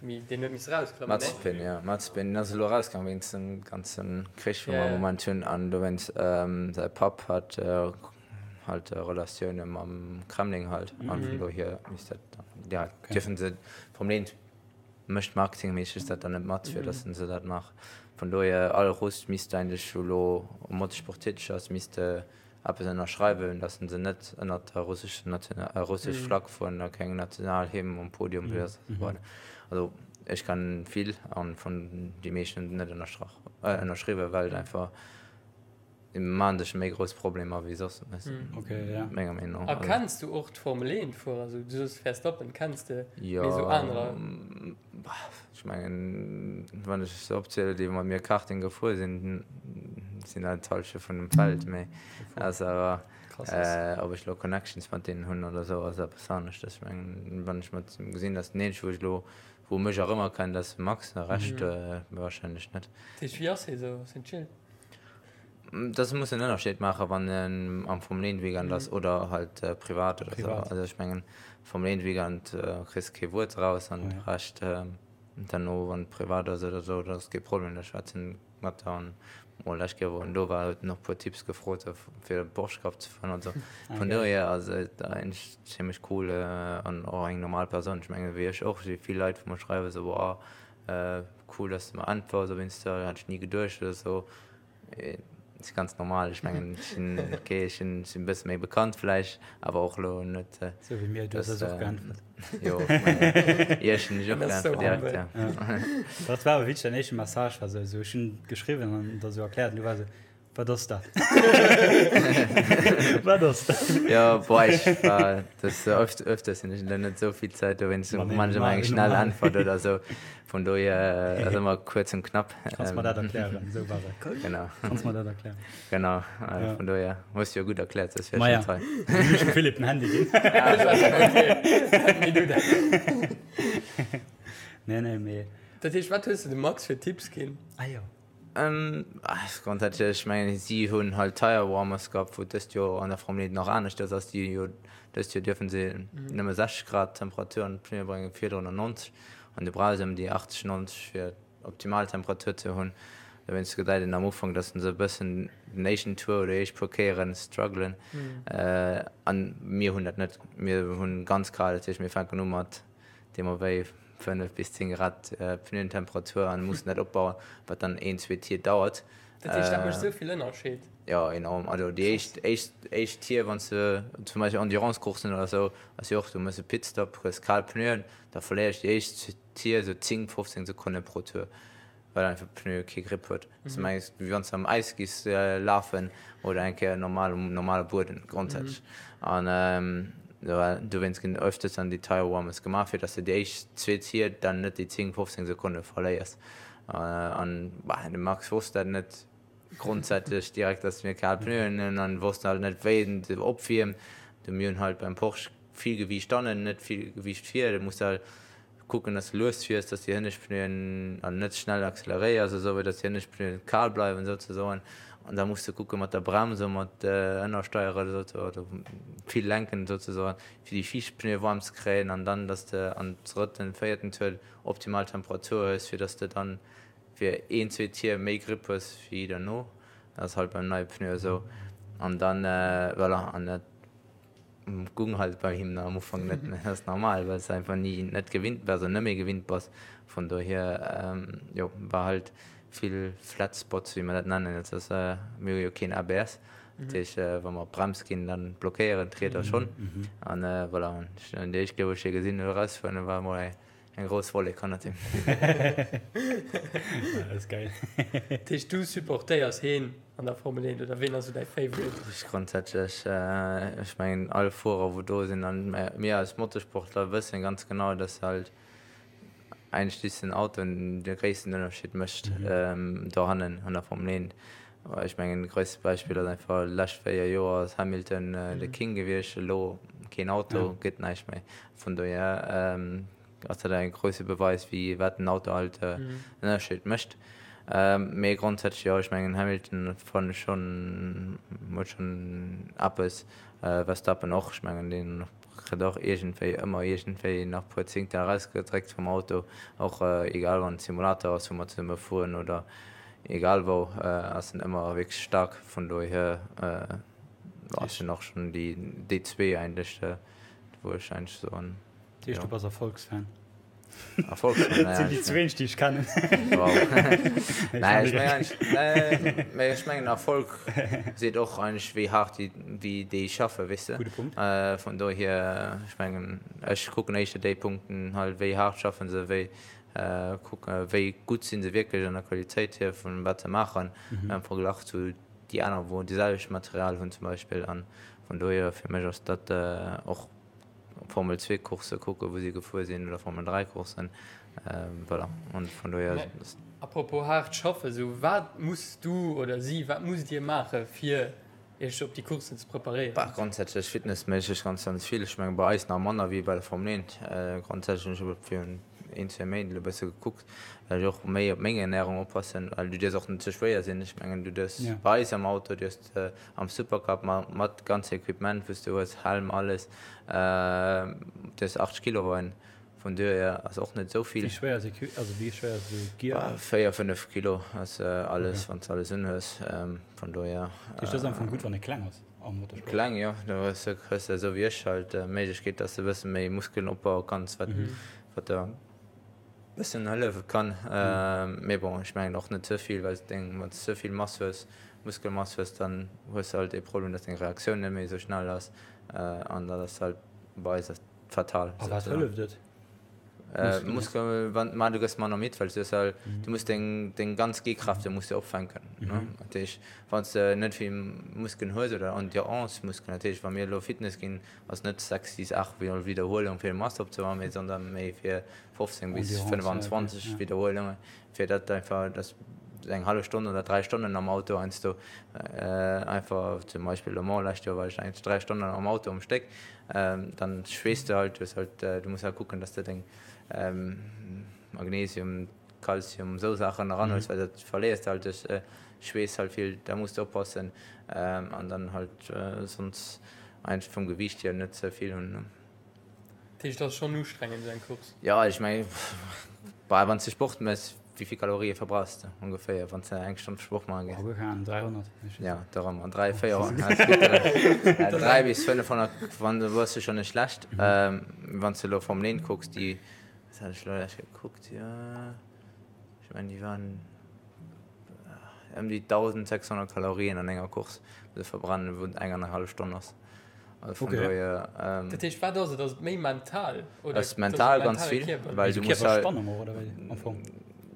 méi, deen huet misse erausklammen, nee? Mazepin, jo, Mazepin ass elo erauskomm wéinst dem ganze Krich, wou mer am Moment hunn, an dowéinst säi Papp hat halt Relatioune mam Kremlin halt an vun dohier misst dat dann, ja, dierfen se vom Leent mécht marketingméisseg dat dann net mat fir datt se dat maachen. Vun dohier all Russ misst eigentlech elo um Motorsport täteg ass misst eppes ënnerschreiwen, datt se net ënnert der russescher National russesch Flagg fueren a keng Nationalhymn um Podium ass an esou weider. Also ech kennen vill an vun déi meeschten hunn net ënnerstrach ënnerschriwwen well et einfach Déi maachen sech méi grouss Problemer wéi soss, menger Meenung no. A kenns du och d'Formel 1 Fuerer? Esou, du soos Verstappen kenns de, mee esou anerer? Jo, ech mengen, wann ech se opzielen, déi mat mir Karting gefuer sinn, sinn dat d'Hallschent vun dem Feld. Mee ass awer, ob ech elo Connections mat deenen hunn oder esou, ass eppes aneschtes. Ech mengen, wann ech mat gesinn, datt den eenzege wou ech elo, wou mech erëmerkennt, ass de Max, de Rescht warscheinlech net. Dat heescht, wéi ass hie esou? Ass hien chill? Das muss en Ënnerscheed maachen, wann en am Formel 1 Weekend ass oder halt privat oder sou. Also ech mengen Formel 1 Weekend kriss kee Wuert raus an de Rescht derno wann et privat ass oder sou, dat ass kee Problem, da schwätz en mat der an mol lescht Kéier wou en do war huet en och puer Tipps gefrot fir de Porsche Cup ze fueren an sou. Vun dohier ass et eigentlech zimmlech cool an och eng normal Persoun. Ech mengen wéi ech och, si vill Leit wou mer schreiwen sou boah Cool dass de mer äntwers op Insta, hat ech ni geduecht oder sou. Ass ganz normal, ech mengen ech sinn ok, ech sinn e bësse méi bekannt vläicht, awer och elo net. Sou wéi mir, du hues eis och geäntwert. Jo, ech mengen iech hunn ech och geäntwert direkt, ja. Dat war awer wierklech däin éischte Message war sou, ech hunn geschriwwen an der sou erkläert an du war sou, Wat ass dat? Wat ass dat? Jo, boah, ech war das öft, öfters hunn ech dann net esou vill Zäit, dowéinst Ma nee, man ech ëmmer normal, eng schnell normal. Äntwert oder esou. Vun dohier ass ëmmer kuerz und knapp. Kanns mer dat erklären? Esou war et. Genau. Kanns mer dat erklären? Genau, Ja. vun dohier hues du jo gutt erkläert, soss wär Ma ech ja. net hei. Hunn ech dem Philippe den Handy ginn. Nee, du dat. Nee, nee, mee. Dat heescht, wat hues de dem Max fir Tipps ginn? Ah jo. Grondsätzlech, ech mengen, si hunn halt Tire Warmers gehabt, wou dëst Joer an der Formel 1 nach aneschters ass. Déi jo dëst Joer dierfe se nëmme 60 Grad Temperatur an d'Pneue bréngen, virdrun 90. An du brauchs ëm déi 80, 90 fir optimal Temperatur ze hunn. Dowéinst gesäit een am Ufank, datt se e bëssen den éischten Tour oder déi éischt puer Kéiere struggelen. An mir hunn dat net. Mir hunn ganz kal, dat heescht mir fänken u mat deemno wéi 5 bis 10 Grad Pneuentemperatur an mussen dat opbauen, wat dann een, zwee Tier dauert. Dat heescht, dat mécht esou vill Ënnerscheed? Jo, enorm. Also déi éischt, éischt, éischt Tier, wann s de zum Beispill Endurance-Courssen oder esou, ass jo och, du méchs e Pitstop, hues kal Pneuen, da verléiers déi éischt Tier esou 10, 15 Sekonne pro Tour, well einfach d'Pneu kee Grip huet. S du mengs, wéi wann s de am Äis giss lafen oder eng Kéier normal um normale Bueden grondsätzlech. An dowéinst ginn öfters dann déi Tire Warmers gemaach, fir dass de déi éischt zwee Tier dann net déi 10, 15 Sekonne verléiers. An bah, de Max wosst dat net grondsätzlech direkt, dass mir kal Pneuen hunn an wosst halt net, wéi en se opwiermt. Du mir hunn halt beim Porsche vill Gewiicht hannen, net vill Gewiicht vir. Du muss halt kucken, dass du lues fiers, dass déi hënnescht Pneuen an net schnell acceleréiers esou, dass déi hënnescht Pneuen kal bleiwen souzesoen. An da muss du kucke mat der Brems a mat Ënnersteiere oder vill lenken souzesoen, fir déi viischt Pneue waarm ze kréien an dann, dass de am drëtten, véierten Tour optimal Temperatur hues, fir dass de dann fir een, zwee Tier méi Grip hues wéi derno. Dat ass halt beim neie Pneu esou. An dann, voilà, an dat gung halt bei him am Ufank net, mä dat ass normal, well s de einfach ni net gewinnt bass an net méi gewinnt bass. Vun dohier, jo, war halt vill Flat Spots, wéi mer dat nennen. Dat ass, mir hu jo keen ABS, dat heescht, wa mer op d'Brems ginn, dann blockéieren d'Rieder schonn. An voilà, an déi éischt Kéier, wou ech hie gesinn hunn erausfueren, war emol eng Eng grouss Wollek hannert him. Dat ass geil. Dat heescht du supportéiers heen an der Formel 1 oder ween ass sou däi Favorite? Ech grondsätzlech, ech mengen all Fuerer wou do sinn an mir als Motorsportler wëssen ganz genau, dass halt eigentlech just den Auto de gréissten Ënnerscheed mécht dohannen an der Formel 1. Ech mengen de gréisste Beispill ass einfach lescht 4 Joer ass Hamilton de King gewiescht, elo keen Auto, gëtt näischt méi. Vun dohier ass dat e grousse Beweis wéi wat den Auto halt en Ënnerscheed mécht. Mee grondsätzlech jo, ech mengen Hamilton fannen ech schonn huet schonn eppes, Verstappen och, ech mengen deen kritt och iergendwéi ëmmer iergendwéi nach puer Zéngtel erausgedréckt vum Auto, och egal wann et Simulator ass wou mer zesumme fueren oder egal wou ass en ëmmer wierklech staark. Vun dohier sinn och schonn déi zwee eigentlech wou ech eigentlech soen. Dat heescht, du bass Erfolgsfan? Erfolgsfan, Dat sinn déi zwee, déi ech kennen. Wow. Nee, ech mengen eigentlech, nee, ech mengen Erfolg seet och eigentlech wéi haart déi, wéi déi schaffen, weess de. Gudde Punkt. Vun dohier, ech mengen, ech kucken éischter déi Punkten halt, wéi haart schaffen se, wéi kucken, wéi gutt si se wierklech an der Qualitéit hier vun wat se maachen am Verglach zu déi aner wou déi selwecht Material hunn zum Beispill. An vun dohier fir mech ass dat och Formel 2 Coursse kucken, wou si gefuer sinn oder Formel 3 Courssen, voilà an vun dohier. A propos haart schaffen, sou wat muss du oder si, wat musst dir maache fir iech op déi Courssen ze preparéieren? Bah, grondsätzlech fitnessméisseg ganz, ganz vill. Ech menge bei eis nach manner wéi bei der Formel 1. Grondsätzlech hunn ech virun een, zwee Méint elo e bësse gekuckt, well ech och méi op meng Ernärung oppassen, well du dierfs och net ze schwéier sinn. Ech mengen du dierfs bei eis am Auto dierfs de am Supercup mat ganze Equipement wou s de hues, Helm, alles, dierfs 80 Kilo weien. Vun duerhier ass och net esou vill. Wéi schwéier ass Equi-, also wéi schwéier ass esou Gear? 4, 5 Kilo ass alles, wann s de alles unhues. Vun dohier. Dat heescht, dat ass am Fong gutt, wann ee kleng ass am Motorsport? Kleng, jo. Do hues de, hues de esou wéi ech halt d'Méiglechkeet, dass de e bësse méi Muskelen opbaue kanns, wat, wat der e bëssen hëllefe kann. Mee bon, ech mengen och net ze vill, well s deng, wann s de ze vill Mass hues, Muskelmass hues, dann hues de halt dee Problem, dass deng Reaktioun net méi esou schnell ass. An dat ass halt bei eis Fatal. A wat hëlleft et? Muskel, wann, ma du gëss manner midd, well du halt, du muss deng, deng ganz G-Kräfte muss de opfänken. Ne? Dat heescht, wann s de net vill Muskelen hues oder Endurance-Muskelen, dat heescht, wa mir elo Fitness ginn, ass net 6, 6, 8 Wiederhuelung fir Mass opzebauen, mee sondern méi fir 15 bis 25 Wiederhuelungen, fir dat einfach, dass eng hallef Stonn oder 3 Stonnen am Auto heiansdo einfach, zum Beispill Le Mans lescht Joer war ech eigentlech 3 Stonnen am Auto um Stéck, dann schweesst du halt, du hues halt, du muss halt kucken, dass de deng Magnesium, Kalzium, esou Saachen eranhuels, well dat verléiers de halt duerch Schweess halt vill, da muss de oppassen an dann halt sonst eigentlech vum Gewiicht hier net ze vill hunn. Dat heescht, et ass schonn ustrengend esou eng Course? Jo, ech mengen, bah, wann s de Sport méchs, wéi vill Kalorië verbrauchs de ongeféier, wann s de eng Stonn Sport maache gees? Oh, guer keng Ahnung, 300? Jo, dorëmmer, 3, 400, 3 bis 500, wann du bass du schonn net schlecht. Wann s de elo Formel 1 kucks, déi, wat hat ech elo lech gekuckt, jo, ech mengen, déi waren. Ëm déi 1.600 Kalorien an enger Course muss e verbrennen, wou eng an eng hallef Stonn ass. Also vun Okay. dohier, ähm, Dat heescht, wat ass et? Ass et méi mental oder ass mental ganz mentale vill, Kierper? well Esou du muss halt, Kierperspannung och, oder wéi am Fong?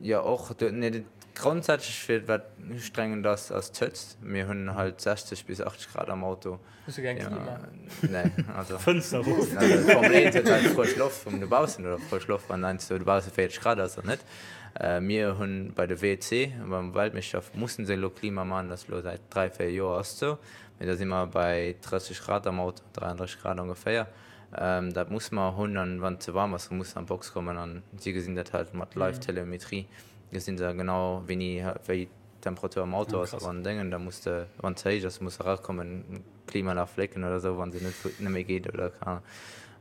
jo och, du, nee, dat grondsätzlech fir wat ustrengend ass, ass d'Hëtzt. Mir hunn halt 60 bis 80 Grad am Auto. Hues du keng Klima? Nee, also. Fënster erof. Also d'Formel 1 huet halt frësch Loft vum dobaussen oder frësch Loft, wann heiansdo dobausse 40 Grad ass oder net. Mir hunn bei de WC, beim Weltmeeschterschaft mussen se elo Klima man, dat ass elo säit 3, 4 Joer ass et esou. Mee da si mer bei 30 Grad am Auto, 33 Grad ongeféier. Dat musse mer hunn an wann et ze waarm ass, da muss se an d'Box kommen an si gesinn dat halt mat Live-Telemetrie, gesinn se genau wéini wéi d'Temperatur am Auto ass an Déngen, da muss de, wann ze héich ass, muss erakommen, Klimaanlag flécken oder esou, wann se net net méi geet oder keine Ahnung.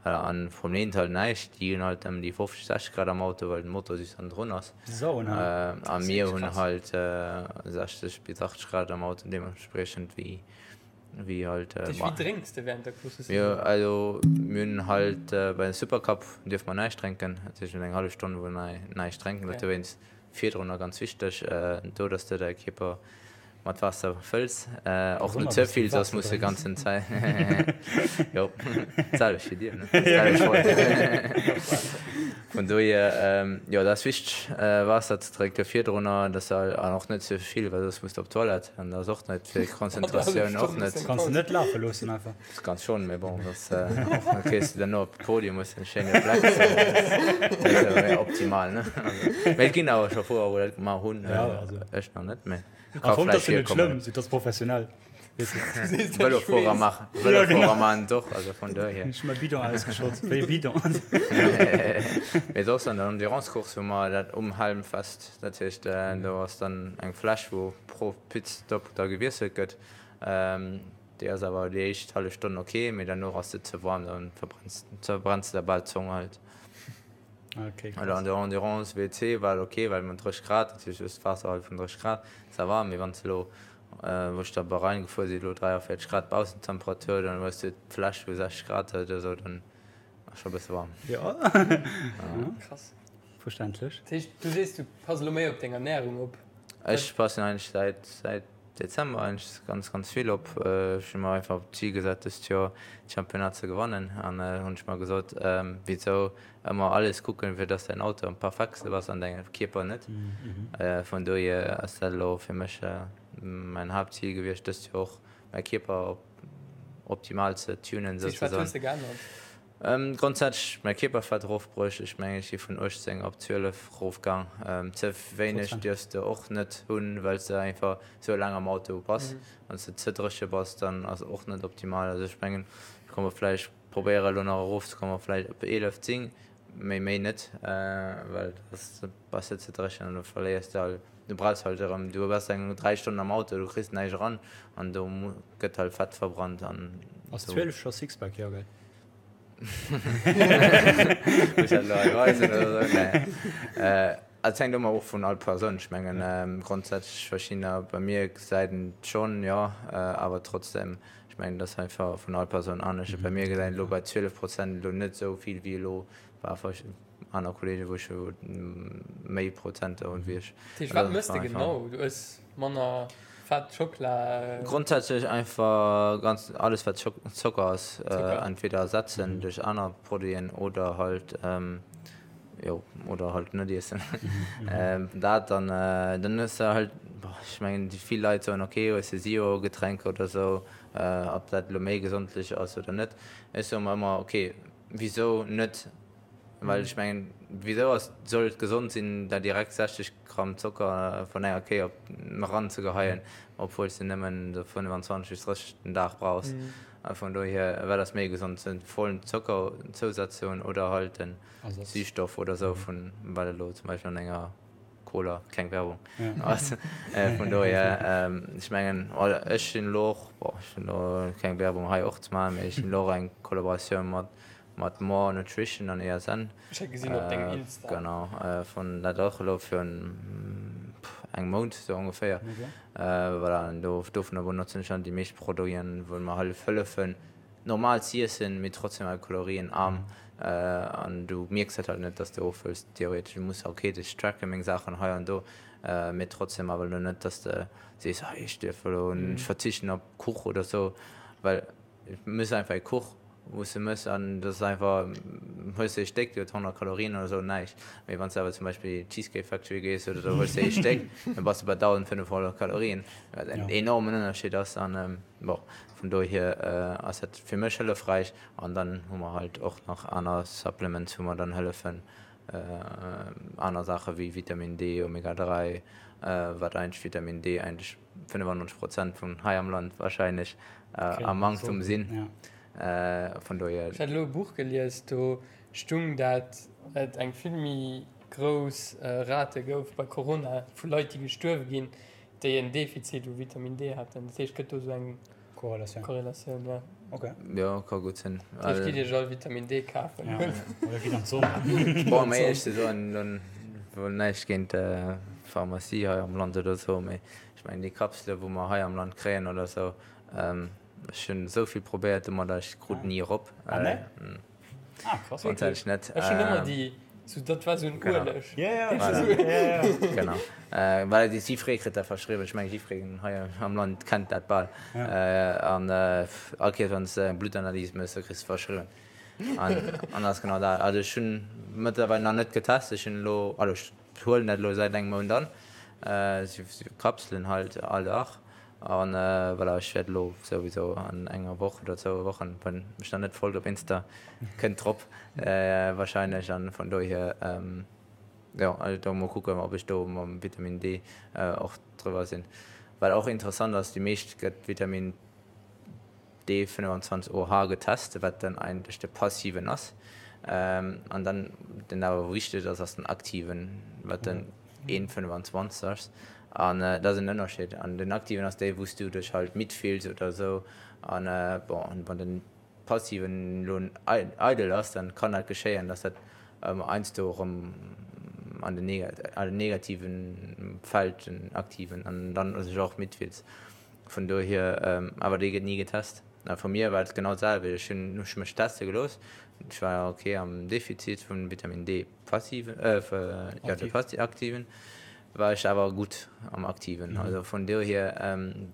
Voilà, an vum Leent halt näischt, déi hunn halt ëm déi 50, 60 Grad am Auto, well den Motor just hannendrun ass. A mir hunn halt 60 bis 80 Grad am Auto, deementspriechend wéi wéi halt. Dat heescht, wéi drénks de während der Course? Jo, also mir hunn halt bei den Supercup dierfe mer näischt drénken, dat heescht mir hunn eng hallef Stonn wou mer näischt drénken, dat dowéinst Virdrunner ganz wichteg, do dass de däi Kierper mat Waasser fëlls, och net ze vill, soss muss de ganzen Zäit, jo, d'selwecht wéi dir, ne? Vun dohier, jo, dat ass wichteg, Waasser ze drénke virdrunner, dass de, an och net ze vill, well soss muss de op d'Toilette, an dat ass och net fir d'Konzentratioun och net. Kanns de net lafe loossen einfach? Kanns schon, mee bon, dass da kriss de dann op Podium hues de en schéine Fleck, dat ass awer méi optimal, ne? Mee et ginn awer scho Fuerer wou dat gemaach hunn, ech nach net, mee ka vläicht virkommen. Am Fong ass jo net schlëmm, et ass professionell. Vëlofuerer maachen, Vëlofuerer maachen et och, also vun dohier. Ech hu mäi Bidon ausgeschott, wéi e Bidon. Mee soss an der Endurance-Course hu mer dat um Helm fest, dat heescht do ass dann eng Fläsch wou pro Pitstop da gewiesselt gëtt. Déi ass awer déi éischt hallef Stonn ok, mee derno ass se ze waarm, dann verbrenns verbrenns de der bal d'Zong halt. Okay, Oder krass. an der Endurance WC war et ok, well mat 30 Grad, dat heescht just d'Waasser halt vun 30 Grad, ça va, mee wann s de elo, wou ech da Bahrain gefuer sinn, elo 43 Grad Baussentemperatur, dann hues de d'Fläsch wou 60 Grad huet oder sou, dann ass scho bësse waarm. Jo. Krass. Verständlech. Dat heescht, du sees, du pass elo méi op deng Ernärung op? Ech passen eigentlech säit säit Dezember eigentlech ganz ganz vill op. Ech hu mer einfach d'Zil gesat dëst Joer d'Championnat ze gewannen an hunn ech mer gesot, wisou ëmmer alles kucken fir dass däin Auto am perfektste ass an däin Kierper net. Vun dohier ass dat elo fir mech mäin Haaptzil gewiescht dëst Joer och mäi Kierper op optimal ze tunen Wat souzesoen. hues de geännert? Grondsätzlech mäi Kierperfett erofbruecht. Ech mengen ech si vun 18 op 12 erofgaang. Ze wéineg dierfs de och net hunn, well s de einfach sou laang am Auto bass. Wann s de ze dréche bass, dann ass och net optimal. Also ech mengen ech komme vläicht probéiere elo nach erofzekommen op vläicht op 11, 10, mee méi net, well da bass de ze dréchen an du verléiers de all, du brauchs halt erëm, du bass eng 3 Stonnen am Auto, du kriss näischt eran an do gëtt halt Fett verbrannt an Ass 12 scho Sixpack? Jo gell? Muss dat elo hei weisen oder sou? Nee. Et hänkt ëmmer of vun all Persoun. Ech mengen grondsätzlech verschiddener, bei mir gesäit een et schonn, jo, awer trotzdem, ech mengen et ass einfach vun all Persoun anescht. Bei mir gesäit een elo bei 12 Prozent elo net esou vill wéi elo bei aner Kollegen, wou ech méi Prozenter hunn wéi ech. Dat heescht, wat mëss de genau? Du ëss manner Fett, Schockela? Grondsätzlech einfach ganz alles wat Zocker ass, entweder ersetzen duerch aner Produiten oder halt jo oder halt net iessen. Dat an dann hues de halt, ech mengen déi vill Leit soen ok hues de Zero Getränker oder sou, ob dat elo méi gesondlech ass oder net. Ech soe mer ëmmer ok wisou net Well ech mengen, wisou ass, soll et gesond sinn, der direkt 60 Gramm Zocker vun enger Kéier op eran ze geheien, obwuel s de nëmmen esou 25 bis 30 den Dag brauchs. A vun dohier, wat ass méi gesond, den vollen Zockerzousaz ze hunn oder halt den Süßstoff oder esou vun, wat elo zum Beispill an enger Cola, keng Werbung, ass. Vun dohier, ech mengen, ech hunn elo och, bon, ech hunn elo keng Werbung hei och ze maachen, mee ech hunn elo och eng Kollaboratioun mat Mat More Nutrition an ESN. Ech hat gesinn op dengem Insta. Genau, vun dat och elo virun engem Mount sou ongeféier. Voilà, an do dovunner benotzen ech dann déi meescht Produiten, wou mer hëllef hëllefen normal z'iessen, mee trotzdem halt kalorienarm. An du mierks dat halt net, dass de ofhëls theoretesch. Du muss ok, ech tracken meng Saachen hei an do. Mee trotzdem awer elo net, dass de sees, hei ech dierf elo, ech verzichten op Kuch oder sou, well et mëss einfach ee Kuch, wou s de mëss an dat ass einfach, hues de ee Stéck, dee huet 100 Kalorien oder sou, näischt. Mee wann s de awer zum Beispill Cheesecake Factory gees oder sou, hues de ee Stéck, da bass de bei 1.500 Kalorien, wat en enormen Ënnerscheed ass. An bon, vun dohier ass dat fir mech hëllefräich. An dann hu mer halt och nach aner Supplements, wou mer dann hëllefen, aner Saache wéi Vitamin D, Omega 3, wat eigentlech Vitamin D eigentlech 95 Prozent vun hei am Land wahrscheinlech am Manktum sinn. Vun dohier. Ech hat elo e Buch gelies, do stung dat et eng vill méi grouss Rate gouf bei Corona vu Leit déi gestuerwe ginn, déi en Defizit u Vitamin D haten. Dat heescht, gëtt do esou eng Korrelatioun. Korrelatioun, ja. Ok. Jo, ka gutt sinn. Dat heescht, gitt iech all Vitamin D kafen. Ja, oder gitt an d'Sonn. Bon, méi éierlech ze soen, lo wuel näischt géint d'Pharmacie hei am Land oder esou, mee ech mengen déi Kapsele wou mer hei am Land kréien oder esou, ech hunn esou vill probéiert domadder, ech krut ni erop. Ah nee? Ah, krass. Grundsätzlech net. Ech hunn ëmmer déi, sou dat war sou en Ueleg. Ja, ja, voilà. Ja, ja. Genau. Well et jiddweree kritt dat verschriwwen. Ech mengen, jiddwereen hei am Land kennt dat bal. An all Kéiers, wann s de eng Bluttanalys méchs, da kriss de verschriwwen. An an ass genau dat. Also ech hunn mëttlerweil nach net getest. Ech hunn elo, also ech huelen dat elo säit engem Mount an, sou Kapselen halt all Dag. An voilà, ech wäert elo souwisou an enger Woch oder zwou Wochen, wann mech nach net folgt op Insta, kënnt drop wahrscheinlech. An vun dohier, jo, also do mol kucken, ob ech do mam Vitamin D och driwwer sinn. Wat och interessant ass, déi meescht gëtt Vitamin D 25 OH getest, wat dann eigentlech de passiven ass. An dann, den awer wichteg ass, ass den aktiven, wat den 1,25 ass. An dat ass en Ënnerscheed. An den aktiven ass dee, wou s du dech halt midd fills oder esou. An bon, wann den passiven elo eidel ass, dann kann dat geschéien, dass dat heiansdo erëm an den negativen fält, den aktiven, an dann sech och midd fills. Vun dohier, awer dee gëtt ni getest. A vu mir war et genau d'selwecht. Ech hunn ech mech teste gelooss. Ech war ok am Defizit vun Vitamin D passiven, jo de passi aktiven, war ech awer gutt am aktiven. Also vun dohier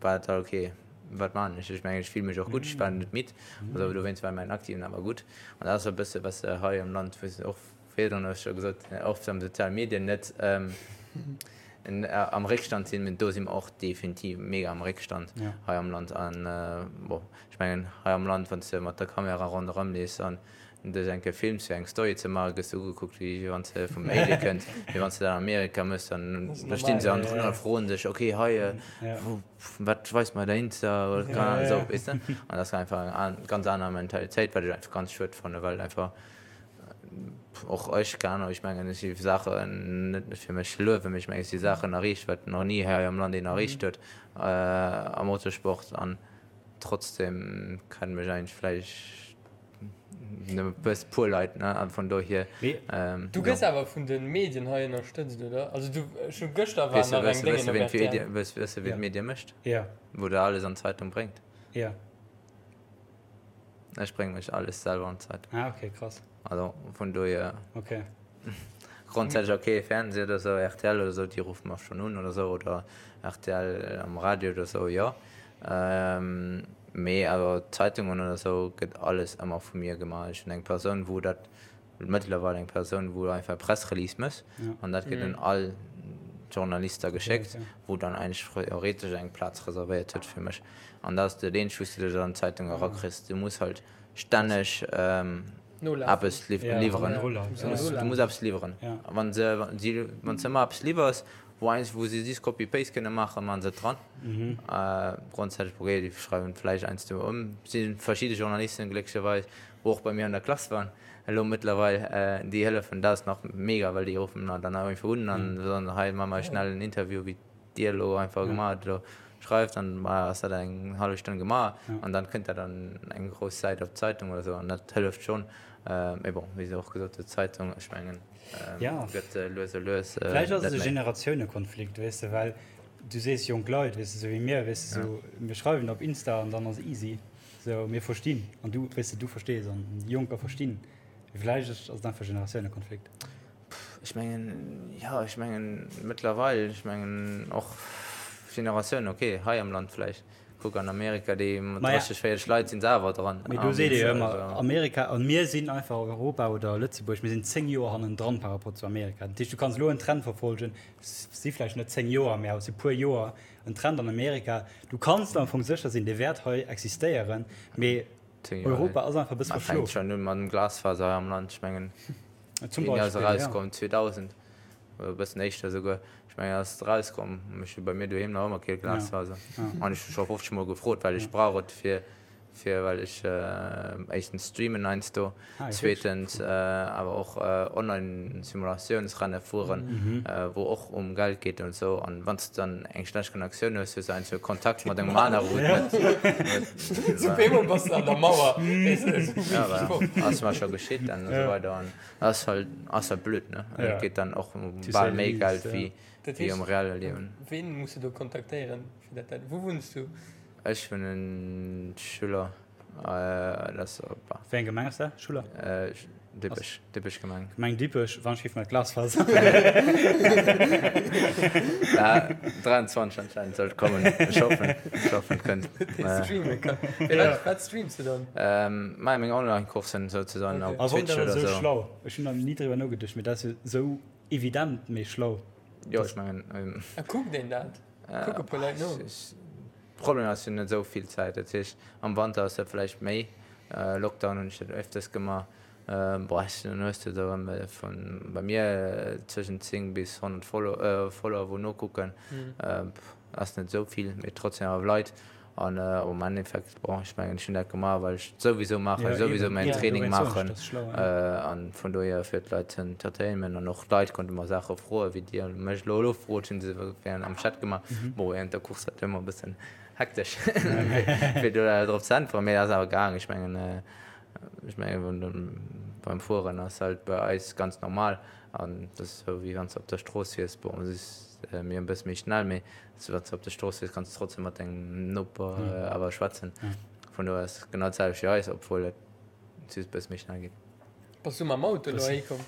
war et da ok, wat maachen ech? Ech mengen ech fill mech och gutt, ech war net midd, also dowéinst war mäin aktiven awer gutt. An dat ass e bësse wat se hei am Land, wou se och Virdrun hu ech scho gesot, oft am soziale Medien net am Réckstand sinn, mee do si mer och definitiv mega am Réckstand hei am Land. An bon, ech mengen hei am Land, wann s de mat der Kamera ronderëm leefs an dech eng Kéier films fir eng Story ze maachen, gëss de ugekuckt wéi wann s de vum Alien kënns. Mee wann s de dat an Amerika méchs, dann da stinn se hannendrun a froen dech, ok hei, wat weist mer der Insta oder keine Ahnung, esou, weess de. An dat ass einfach eng ganz aner Mentalitéit, wat ech einfach ganz schued fannen, well einfach Och ech, keng Ahnung, ech mengen ech hu Saachen, net fir mech ze luewen, mee ech mengen ech hu Saachen erreecht, wat nach ni hei am Land een erreecht huet am Motorsport an trotzdem kennen mech eigentlech vläicht nëmme e puer Leit, ne, an vun dohier, Du gëss awer vun de Medien hei ënnerstëtzt, oder? Also du, ech hu gëschter war nach eng Déngen op rtl. Weess de wien d'Medie mécht? Jo. Wou der alles an d'Zeitung bréngt? Jo. Ech brénge mech alles selwer an d'Zeitung. Ah, okay, krass. Also vun dohier. Okay. Grondsätzlech okay, Fernseh oder sou, rtl oder sou, déi ruffe mer schonn un oder sou, oder rtl am Radio oder sou, jo. Mee awer Zeitungen oder sou gëtt alles ëmmer vu mir gemaach. Ech hunn eng Persoun, wou dat Mëttlerweil eng Persoun, wou einfach e Pressrelease mécht an dat gëtt un all d'Journalister geschéckt, wou dann eigentlech theoretesch eng Plaz reservéiert huet fir mech. An dat ass dat eenzegt, wou s du dech an d'Zeitung erakriss. Du muss halt stänneg eppes liwweren. Du muss eppes liwweren. A wann se, wann s de ëmmer eppes liwwers, wou eigentlech, wou se just Copy-Paste kënne maachen, maache se et dran. Grondsätzlech, okay, déi schreiwen vläicht heiansdo ëm. Et si verschidde Journalisten, glécklecherweis, wou och bei mir an der Klass waren, elo mëttlerweil, déi hëllefen, dat ass nach mega, well déi ruffen dann nach einfach un an soen, hei maache mer schnell en Interview, wéi dir elo einfach gemaach hutt, elo schreift, dann ass dat eng hallef Stonn gemaach an dann kënnt dat an eng grouss Säit op d'Zeitung oder esou an dat hëlleft schonn. Mee bon, wéi se och gesot huet, d'Zeitung, ech mengen, gëtt lues a lues net méi. Vläicht ass et e Generatiounekonflikt, weess de, well du sees jonk Leit, weess de, esou wéi mir, weess de, esou mir schreiwen op Insta an dann ass easy. Sou, mir verstinn an du, weess de, du verstees an déi Jonker verstinn. Mee vläicht ass et einfach Generatiounekonflikt. Ech mengen, jo, ech mengen mëttlerweil, ech mengen och Generatioun, ok, hei am Land vläicht, kuck an Amerika, déi mat 30, 40 Leit sinn se awer dran. Mee do seet ee jo ëmmer, Amerika, an mir sinn einfach Europa oder Lëtzebuerg, mir sinn 10 Joer hannendran par rapport zu Amerika. Dat heescht, du kanns elo en Trend verfolgen, si vläicht net 10 Joer, mee awer si puer Joer, en Trend an Amerika, du kanns am Fong sécher sinn, dee wäert hei existéieren, mee Europa ass einfach e bësse verschlof. Fänkt schonn un mat dem Glasfaser hei am Land, ech mengen. Zum Beispill, ass erauskomm 2000 oder e bëssen éischter esouguer. Ech mengen ass et erauskomm. Ech hu bei mir doheem nach ëmmer kee Glasfaser. An ech hu scho 50 mol gefrot, well ech brauch et fir fir well ech éischtens streamen heiansdo, zweetens awer och online Simulatiounsrenne fueren, wou och um Geld geet an esou. An wann s de dann eng schlecht Connectioun hues, hues de heiansdo Kontakt mat engem anere wou et net. Op eemol bass de an der Mauer. Ja, voilà. Ass mer scho geschitt an esou weider. An ass halt, ass halt blöd, ne? An et geet dann och ëm bal méi Geld wéi, wéi am reelle Liewen. Ween muss de do kontaktéieren, fir dat dat. Wou wunns du? Ech wunnen Schuller. Dat ass op. Wéi eng Gemeng ass dat, Schuller? Dippech, Dippech Gemeng. Gemeng Dippech, wann ech géif mat Glasfaser. Ja, 23 anscheinend sollt kommen. Ech hoffen, ech hoffen et kënnt. Streame kann. Wat, wat streams de dann? Mei meng Online-Coursen souzesoen op Twitch oder esou. Esou schlau. Ech hunn nach ni driwwer nogeduecht, mee dat ass jo esou evident méi schlau. Jo, ech mengen. A kuckt een dat? Kucke puer Leit no? Problem ass, ech hunn net esou vill Zäit. Dat heescht, am Wanter ass dat vläicht méi. Lockdown hunn ech dat öfters gemaach. Boah, dann hues de do vun bei mir zwëschent 10 bis 100 Follower wou nokucken. Ass net esou vill, mee trotzdem awer Leit. An am Endeffekt, bon, ech mengen, ech hunn dat gemaach, well ech et souwisou maachen, souwisou mäin Training maachen. An vun dohier fir d'Leit ze entertainen. An och d'Leit konnte mer Saache froen, wéi Dir mech elo elo frot, hunn se während am Chat gemaach. Bon, während der Course war et ëmmer e bëssen hektesch, fir do drop ze äntweren, mee et ass awer gaang. Ech mengen, ech mengen, beim Fueren ass halt bei eis ganz normal an et ass esou, wéi wann s de op der Strooss wiers. Bon, et ass mir e bësse méi schnell, mee Wann s de op der Strooss wiers, kanns de trotzdem mat dengem Noper awer schwätzen. Vun dohier ass et genau d'selwecht wéi eis, obwuel et just e bësse méi schnell geet. Bass du mam Auto elo heihi komm?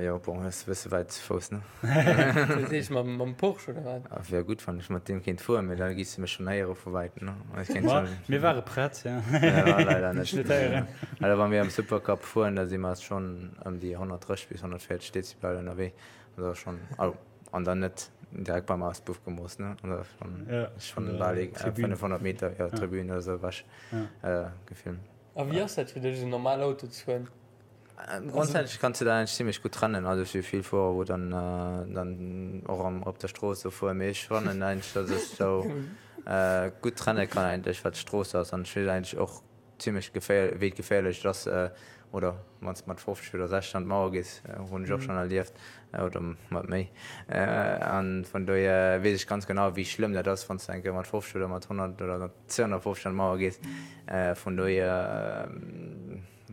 Jo, bon, ass e bësse wäit ze Fouss, ne? Dat heescht mam Porsche oder wat? Wier gutt, wann ech mat deem kéint fueren, mee da giss de mech schonn héiere vu wäitem, ne? Ech kéint schonn. Mir ware prett, jo. Jo, leider net. Dech net héieren. Also wa mir am Supercup fueren, da si mer schonn ëm déi 130 bis 140 Dezibel ënnerwee. Dat ass schonn, also. An dann net direkt beim Auspuff gemooss, ne? An da schon, ja, schon bal 500 Meter, ja, Tribün oder sou ewech ja. gefilmt. A wéi ass dat fir dech, esou normal Auto ze fueren? Grondsätzlech kanns du dat eigentlech zimmlech gutt trennen. Also ech hu vill Fuerer, wou dann, dann och am, op der Strooss sou fueren, mee ech fannen eigentlech, datt ech sou gutt trenne kann eigentlech, wat d'Strooss ass. An ech weess eigentlech och Zimlech geféier, wéi geféierlech et ass, oder wann s de mat 50 oder 60 an d'Mauer gees, hunn ech och schonn erlieft, oder mat méi. A vun dohier weess ech ganz genau, wéi schlëmm dat ass, wann s de eng Kéier mat 50 oder mat 100 oder mat 250 an d'Mauer gees. Vun dohier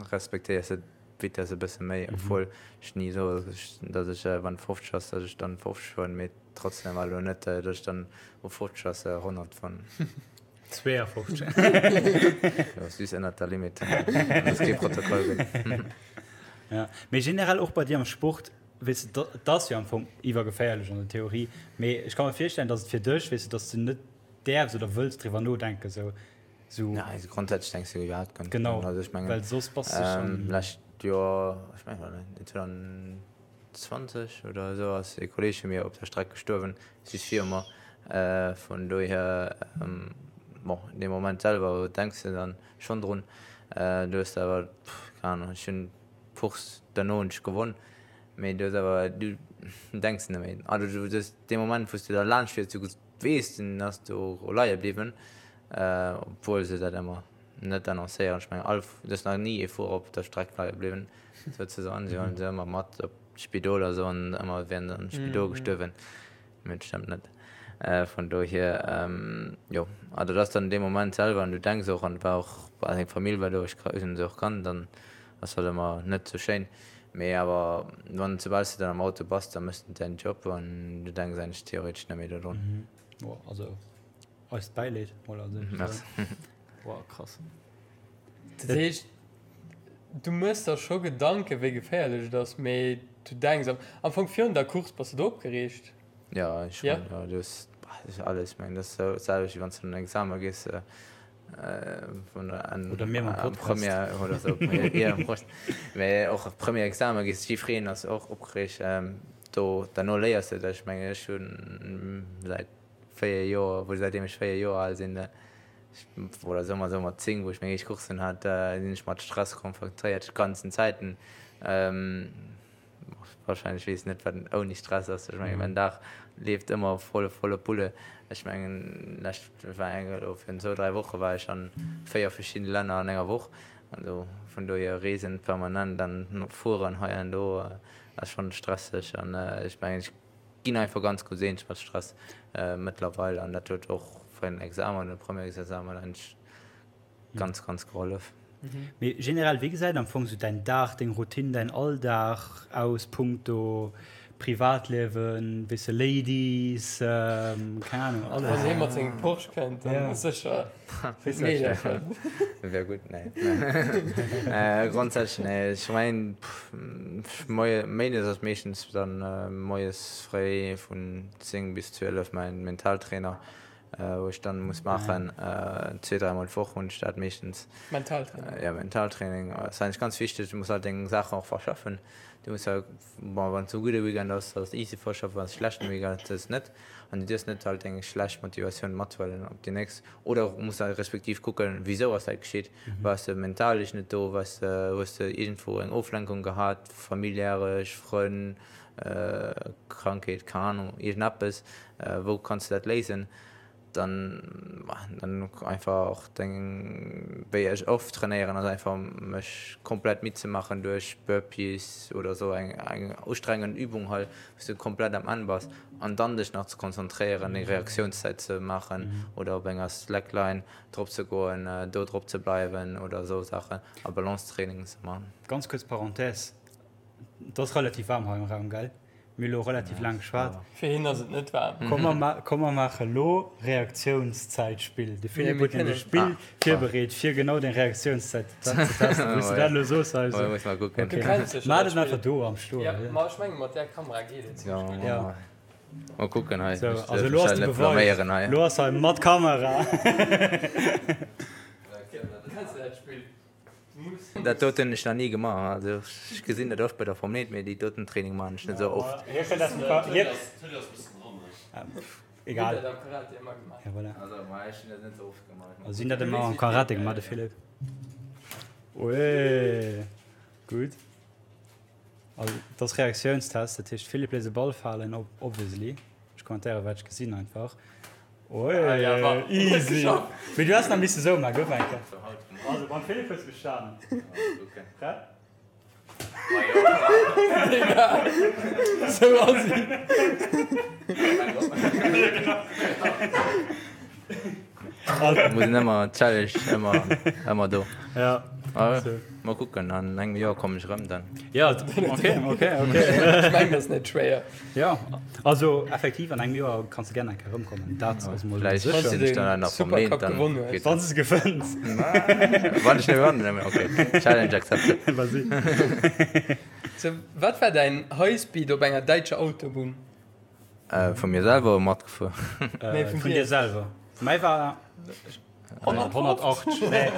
respektéiers de d'Vitess e bësse méi, obwuel ech ni soe, datt ech, wann 50 ass, datt ech dann 50 fueren, mee trotzdem awer elo net, datt ech dann u 50 ass 100 fueren. 52. Jo, süß ënnert der Limite. Dass kee Protokoll gëtt. Ja, mee generell och bei dir am Sport, weess de, et ass jo am Fong iwwergeféierlech an der Theorie, mee ech ka mer virstellen, dass et fir dech, weess de, dass de net däerfs oder wëlls driwwer nodenken, sou, sou. Nei, also grondsätzlech denks du iwwerhaapt guer net drun. Genau, also ech mengen, well soss bass de schonn. Lescht Joer, ech mengen, war dat 2020 oder esou, ass e Kolleeg vu mir op der Streck gestuerwen, just viru mer. Vun dohier, bon, dee Moment selwer denks de dann schonn drun. Du hues awer, keng Ahnung, ech hunn d'Course derno hunn ech gewonn, mee du hues awer, du denks net méi. Also du hues dee Moment, wou s de da laanscht fiers, du weess, den ass do leie bliwwen, obwuel se dat ëmmer net annoncéieren. Ech mengen all, et ass nach ni ee Fuerer op der Streck leie bliwwen, souzesoen. Si huelen se ëmmer mat op d'Spidol a soen ëmmer, et wier en am Spidol gestuerwen. Mee et stëmmt net. Vun dohier, jo, also dat ass dann dee Moment selwer an du denks och, an et war och, seng Famill war do, ech hunn se och kannt an ass halt ëmmer net sou schéin. Mee awer wann, soubal s de dann am Auto bass, da méchs de däin Job an du denks eigentlech theoretesch net méi dodrun. Boah, also eist Bäileed mol als éischt. Merci. Boah, krass. Dat heescht, du méchs der scho Gedanken, wéi geféierlech et ass, mee. Du denks am am Fong virun der Course, bass de do opgereegt? Jo, ech schonn, jo. Du hues alles, ech mengen, dat ass dat selwecht, wéi wann s de an en Examen gees, Oder mir mam Podcast. Première oder sou, jo, Prost. Mee och Première Examen gees, jiddwereen ass och opgereegt. Do, derno léiers de dech, mengen ech, hunn säit 4 Joer, wou säitdeem ech 4 Joer al sinn, oder soe mer esou mat 10, wou ech meng éischt Coursen hat, sinn ech mat Stress konfrontéiert, ganzen Zäiten. Wahrscheinlech weess net wat ouni Stress ass. Ech mengen mäin Dag leeft ëmmer voll volle Pulle. Ech mengen lescht war eng elo virun zwou 3 Woche war ech an 4 verschiddene Länner an enger Woch. Also vun dohier reesen permanent an fueren hei an do ass schonn stresseg an ech mengen ech ginn einfach ganz gutt eens mat Stress mëttlerweil an dat huet och fir den Examen, den Premièresexamen eigentlech ganz ganz gehollef. Mee generell, wéi gesäit am Fong sou däin Dag, deng Routine, däin Alldag aus punkto Privatliewen, weess de, Ladies, keng Ahnung, alles? Wann hie mat sengem Porsche kënnt, dann ass sécher Meedercher. Wär gutt, nee. Grondsätzlech, nee, ech mengen, moie, méindes ass meeschtens dann moies fréi vun 10 bis 12 mäin Mentaltrainer. Wou ech dann muss maachen, zwee, dräimol d'Woch hunn ech dat meeschtens. Mentaltraining? Ja, Mentaltraining ass eigentlech ganz wichteg. Du muss halt deng Saachen och verschaffen. Du muss halt, bon, wann et e gudde Weekend ass, ass et easy verschaffen, wann et e schlechten Weekend ass, ass et net. An du dierfs net halt deng schlecht Motivatioun mathuelen op déi nächst. Oder muss halt respektiv kucken, wisou ass dat geschitt? Waars de mentalesch net do? Waars de, hues de iergendwou eng Oflenkung gehat, familiäresch, Frënn, Krankheet, keng Ahnung, iergendeppes, wou kanns de dat léisen? Dann, dann einfach och deng, wéi ech oft trainéieren, ass einfach mech komplett midd ze maachen duerch Burpees oder esou eng eng ustrengend Übung halt, wou s de komplett am Enn bass an dann dech nach ze konzentréieren, deng Reaktiounszäit ze maachen oder op enger Slackline drop ze goen, do drop ze bleiwen oder esou Saachen a Balancetraining ze maachen. Ganz kuerz Parenthèse, Et ass relativ waarm hei am Raum, gell? Mir hu lo relativ laang geschwat. Fir hien ass et net waarm. Komm mer maache lo Reaktiounszäitspill. De Philippe huet nämlech e Spill virbereet, fir genau deng Reaktiounszäit ze testen. Wou s de dat elo soos, also. Muss mer kucken. Du kenns sécher dat Spill. Maach et einfach do am Stoen. Jo, ma ech menge mat där Kamera geet et zimmlech gutt. Jo. Mol kucken hei. Sou, also elo ass de Beweis. Elo ass hei mat Kamera. Kenns de dat Spill? Dat doten hunn ech nach ni gemaach. Also ech gesinn dat oft bei der Formel 1, mee déi doten Training maachen ech net esou oft. Egal. Ja, voilà. Also si hunn dat ëmmer am Karate gemaach, de Philippe. Ueeh, gutt. Also dat ass Reaktiounstest, dat heescht Philippe léisst e Ball falen, obviously. Ech kommentéiere wat ech gesinn einfach. Oi, easy. Mee du häss nach misse sou maachen, gouf eng Kéier. Also beim Philippe hues de bestanen. Prett? Sou ass si. Muss een ëmmer Challenge ëmmer ëmmer do. Ja. Mol kucken, an engem Joer kommen ech erëm dann. Ja, ok, ok, ok. Ech mengen, dat ass net schwéier. Ja, also effektiv an engem Joer kanns de gär eng Kéier erëmkommen. Dat ass mol Vläicht sécher. sinn ech dann awer nach Supercup vermeent, dann gewonnen hues. geet Wann s de gewënns. Wann ech net gewannen, ok, Challenge accepted. Vas-y. So, wat war däin Highspeed op enger däitscher Autobunn? Vu mir selwer oder matgefuer? Nee, vun Vun dir. dir selwer. Mäi war 180. Nee,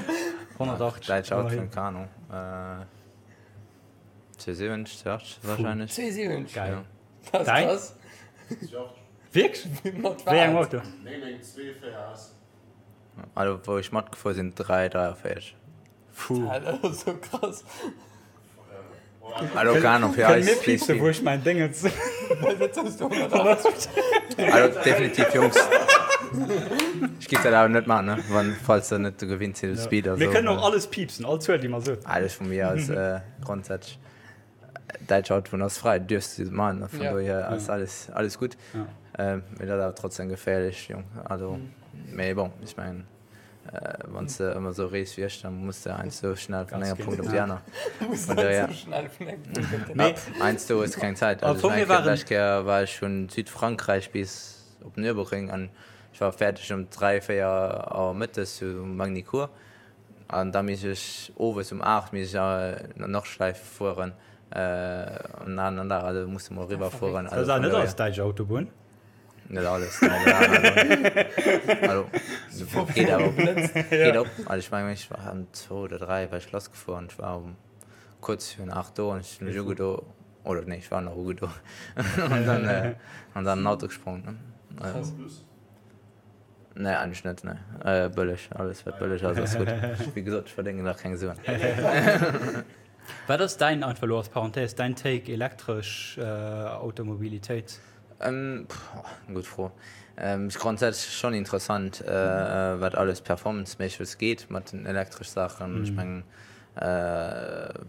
180. Däitsch Autobunn, keng Ahnung. 270, 280 wahrscheinlech. 270? Geil. Ja. Dat ass Däin? krass. 280. Wierklech? Mat Wéi engem wat? Auto? 992 4S. Also wou ech matgefuer sinn 3, 43. Puh. Dat ass sou krass. Also keine Ahnung, fir Kënne eis mir piepsen, wou Speed. ech mäin Déngens. Dat hues du 180. Also definitiv Jungs. Ech giff dat awer net maachen, ne? Wann, falls der net gewinnt sidd u Speed a Mir sou. kënnen och alles piepsen, all Zuel, déi mer soen. Alles vu mir aus grondsätzlech. Däitsch Autobunn ass fräi, du dierfs se maachen, vun Ja. dohier ass alles, alles gutt. Ja. Mee dat ass awer trotzdem geféierlech, Jong. Also, mee bon, ech mengen. Wann s de ëmmer esou rees wéi ech, da muss de heiansdo schnell vun engem Punkt op déi aner. Muss heiansdo schnell vun engem Punkt op déi aner. Heiansdo hues de keng Zäit. Also ech mengen, d'lescht Kéier war ech vun Südfrankräich bis op Nürburgring an ech war fäerdeg um 3, 4 Auer mëttes zu Magny-Cours an da misst ech owes um 8 misst ech an Nordschleife fueren. An aneren Dag, also muss de mol eriwwer fueren. Dat ass net alles däitsch Autobunn? Net alles, nee. Also, geet awer op. Geet op. Also ech mengen, ech war ëm zwou oder dräi war ech lassgefuer an ech war um kuerz virun 8 do an ech hunn mech ugedo, oder nee, ech war nach ugedo an dann, an dann an den Auto gesprongen, ne. Krass. Nee, eigentlech net, nee. Bëlleg, alles wat bëlleg ass, ass gutt. Wéi gesot, ech verdéngen nach keng Suen. Wat ass däin, einfach elo als Parenthèse, däin Take elektresch Automobilitéit? Gutt Fro. Ass grondsätzlech schonn interessant, wat alles performanceméisseg geet mat den elektresch Saachen. Ech mengen,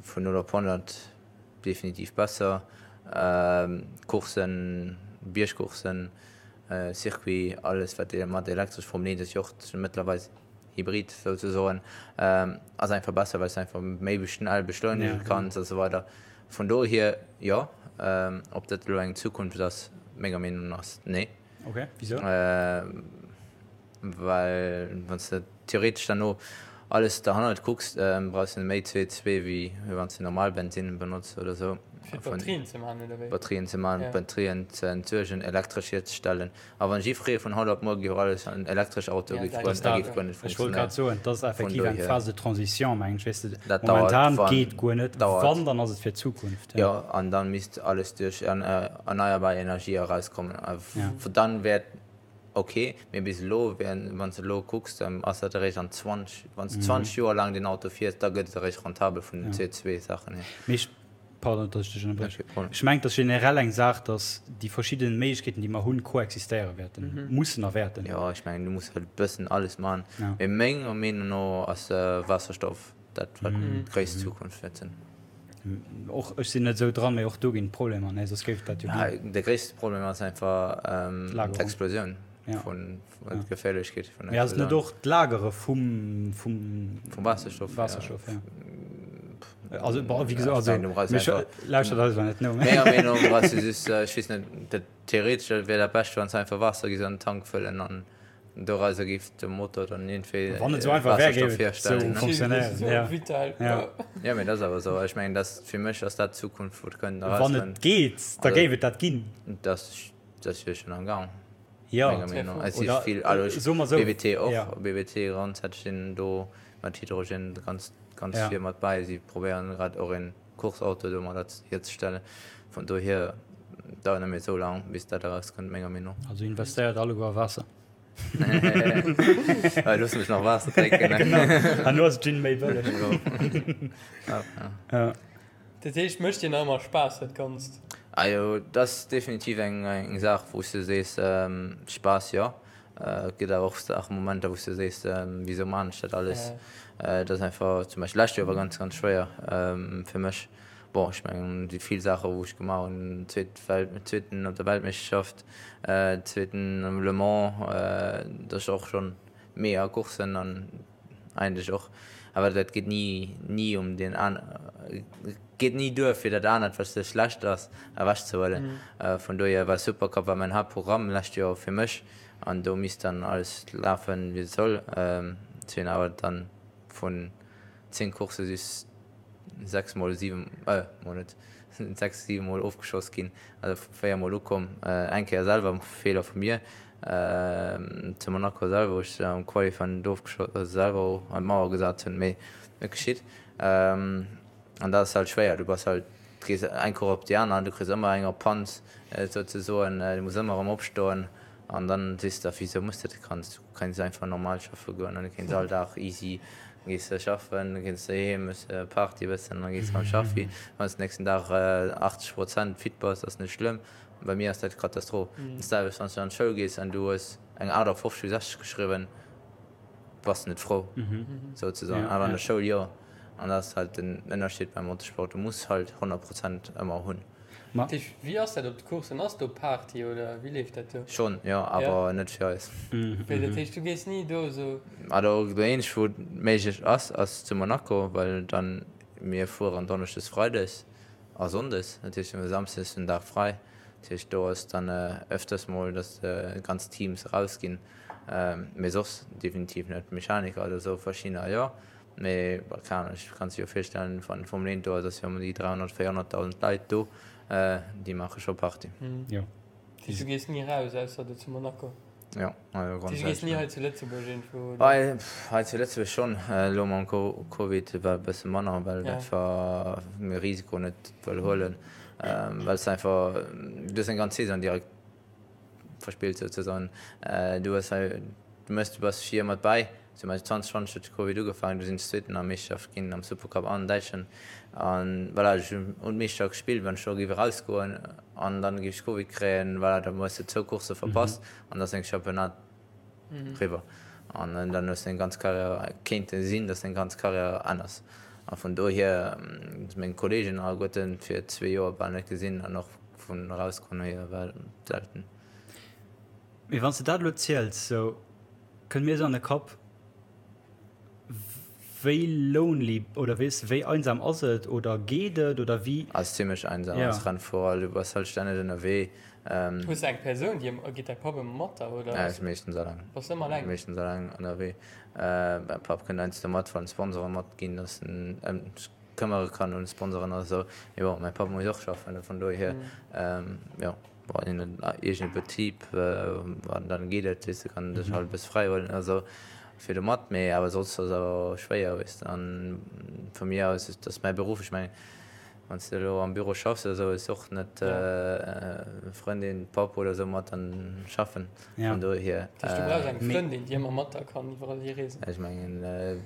vun 0 op 100 definitiv besser. Courssen, Biergcourssen, Circuit, alles wat mat elektresch, Formel 1 ass jo och mëttlerweil Hybrid souzesoen, ass einfach besser, well s de einfach méi schnell beschleunege kanns a sou weider. Vun dohier jo. Ob dat elo eng Zukunft ass, menger Meenung no ass nee. Ok, wisou? Well wann s de theoretesch dann alles derhannert kucks, brauchs de méi CO2 wéi wann s de normal Bensinn benotz oder sou. Fir d'Batterien ze maachen, oder wéi? Batterien ze maachen, d'Batterien ze entsuergen, elektresch hierzestellen. A wann jiffree vun haut op muer géif alles an elektresch Autoe géif goen, da géif guer net Ech wollt grad soen, dat ass effektiv eng Phase de transition, mengen ech, weess de. Dat dauert, Momentan wann, geet guer net, dauert. Wann, dann ass et fir d'Zukunft, ja. Jo, an dann misst alles duerch erneierbar Energie erauskommen. A dann wär et ok, mee bis elo, wann s de elo kucks, dann ass dat eréischt an 20, wann s de 20 Joer laang deen Auto fiers, da gëtt et eréischt rentabel vun den CO2-Saachen hier. Mee ech, pardon, datt ech dech ënnerbriechen, ech mengen, et ass generell eng Saach, datt déi verschidden Méiglechkeeten, déi mer hunn, koexistéiere wäerten, mussen a wäerten. Jo, ech mengen, du muss halt e bëssen alles maachen, mee menger Meenung no ass Waasserstoff dat, wat d'gréisst Zukunft wäert sinn. Och ech sinn net esou dran, mee och do ginn et Problemer, ne? Soss géif et dat jo ginn. De gréisste Problem ass einfach d'Explosioun vun d'Geféierlechkeet vun der Explosioun. Mee ass et net och d'Lagere vum vum Waasserstoff? Waasserstoff, ja. Also, bon, wéi gesot, also, lauschtert eis awer net no. Menger Meenung no brauchs du just, ech weess net, dat theoretesch wär dat Bescht, wann s du einfach Waasser géifs an den Tank fëllen an Dorauser géif de Motor dann iergendwéi Wann et esou einfach wär, géif et esou funktionéieren. Ja. Vital. Ja. Ja, mee dat ass awer esou. Ech mengen, dat fir mech ass dat d'Zukunft, wou et kënnt Wann et geet, da géif et dat ginn. Dat ass jo schonn am Gang. Ja. Menger Meenung no. Et si vill, also Soe mer esou. BWT och. Ja. BWT grondsätzlech sinn do mat Hydrogen ganz, ganz vir mat bäi. Si probéieren grad och een Course-Auto domadder hierzestellen. Vun dohier dauert net méi esou laang, bis dat erauskënnt, menger Meenung no. Also investéiert alleguer a Waasser. Looss mech nach Waasser drénken. Genau, an elo ass Gin méi bëlleg. Ja. Dat heescht, mécht dir nach ëmmer Spaass dat Ganzt? Ajo, dat ass definitiv eng Saach, wou s de sees, Spaass jo. Et gëtt awer och Saachen, Momenter, wou s de sees, wisou maan ech dat alles? Et ass einfach, zum Beispill lescht Joer war ganz, ganz schwéier fir mech. Bon, ech mengen, déi vill Saache wou ech gemaach hunn, zweet Welt, zweeten op der Weltmeeschterschaft, zweeten um Le Mans, dat ass och schonn mega Courssen an eigentlech och, awer dat geet ni, ni um deen an, geet ni duer fir dat anert, wat schlecht ass, ewechzehuelen. Vun dohier war Supercup war mäin Haaptprogramm lescht Joer fir mech an do misst dann alles lafen, wéi et soll. Ech hunn awer dann vun 10 Coursse just 6 mol, 7, mol net, 6, 7 mol ofgeschoss ginn, also 4 mol ukomm, eng Kéier selwer, Feeler vu mir, zu Monaco selwer, wou ech am Qualifying net ofgeschoss, also selwer an d'Mauer gesat hunn, mee et geschitt. An dat ass halt schwéier, du bass halt, du gees eng Course op déi aner, du kriss ëmmer eng op d'Panz souzesoen, du muss ëmmer erëm opstoen an dann sees de der, wisou muss de dat, kanns du kéints einfach normal schaffe goen an du kéints all Dag easy gees de schaffen, da gees de heem, hues Party e bëssen an da gees de erëm schaffi. Wann s de nächsten Dag 80 Prozent fit bass, ass net schlëmm. Bei mir ass dat Katastroph. Dat selwecht wann s du an d'Schoul gees an du hues eng 58 vu 60 geschriwwen, bass de net frou souzesoen. Awer an der Schoul jo. An dat ass halt den Ënnerscheed beim Motorsport, du muss halt 100 Prozent ëmmer hunn. Dat heescht, wéi ass dat op de Coursen? Ass do Party oder wéi leeft dat do? Schonn, jo, awer net fir eis. Wéi, dat heescht, du gees ni do esou? Also dat eenzegt wou et méiglech ass, ass zu Monaco, well dann mir fueren donneschdes, freides a sonndes, dat heescht mir hu samsdes den Dag fräi. Dat heescht do ass dann öfters mol, datt ganz Teams erausginn, mee soss definitiv net. Mechaniker oder esou verschiddener jo. Mee bon, keng Ahnung, ech kann sech jo virstellen, wann Formel 1 do ass, ass jo ëm déi 300, 400.000 Leit do, déi maache scho Party. Jo. Dat heescht, du gees ni raus, ausser do zu Monaco? Jo, also grundsätzlech. Du gees ni hei zu Lëtzebuerg iergendwou, oder? Hei, hei zu Lëtzebuerg schonn. Elo mam Covid war e bësse manner, well einfach mir Risiko net wëll huelen, well s einfach, du hues eng ganz Saison direkt verspillt souzesoen. Du hues hei, du méchs, du bass vir mat bäi, zum Beispill 2020 huet de Covid ugefaangen, du sinn ech Zweeten an der Meeschterschaft ginn am Supercup an Däitschen an voilà, ech hunn un d'Meeschterschaft gespillt, wann ech do géif erausgoen an dann géif ech Covid kréien, voilà, da hues de zwou Coursse verpasst an da ass deng Championnat riwwer an dann hues de deng ganz Karriär, kéint sinn, dass deng ganz Karriär ännerst a vun dohier meng Kolleegen alleguerten fir zwee Joer bal net gesinn an och Vun erausgoen hier war selten. Mee wann s de dat elo ziels, sou kënnt mir esou an de Kapp, wéi lonely oder weess de, wéi einsam ass et oder geet et oder wéi? Ass zimlech einsam als Rennfuerer, du bass halt stänneg ënnerwee. Hues de eng Persoun, déi ëmmer, geet däi Papp ëmmer mat der oder? Nee, ech meeschtens alleng. Bass ëmmer alleng? Meeschtens alleng ënnerwee. Mäi Papp kënnt heiansdo mat, wann Sponsoren matginn, dass en këmmere kann un Sponsoren oder sou. Mee bon, mäi Papp muss och schaffen, vun dohier, jo, wann een en eegene Betrib, an dann geet et, weess de, kann en sech halt e bësse fräi huelen oder sou fir do mat. Mee awer soss ass awer schwéier, weess de. An vu mir aus, et ass mäi Beruff, ech mengen, Wann s de elo am Büro schaffs oder sou, hues och net Frëndin, Papp oder sou mat an schaffen. Vun dohier. Dat heescht, du brauchs eng Frëndin, déi ëmmer mat der kann iwwerall hi reesen? Ech mengen,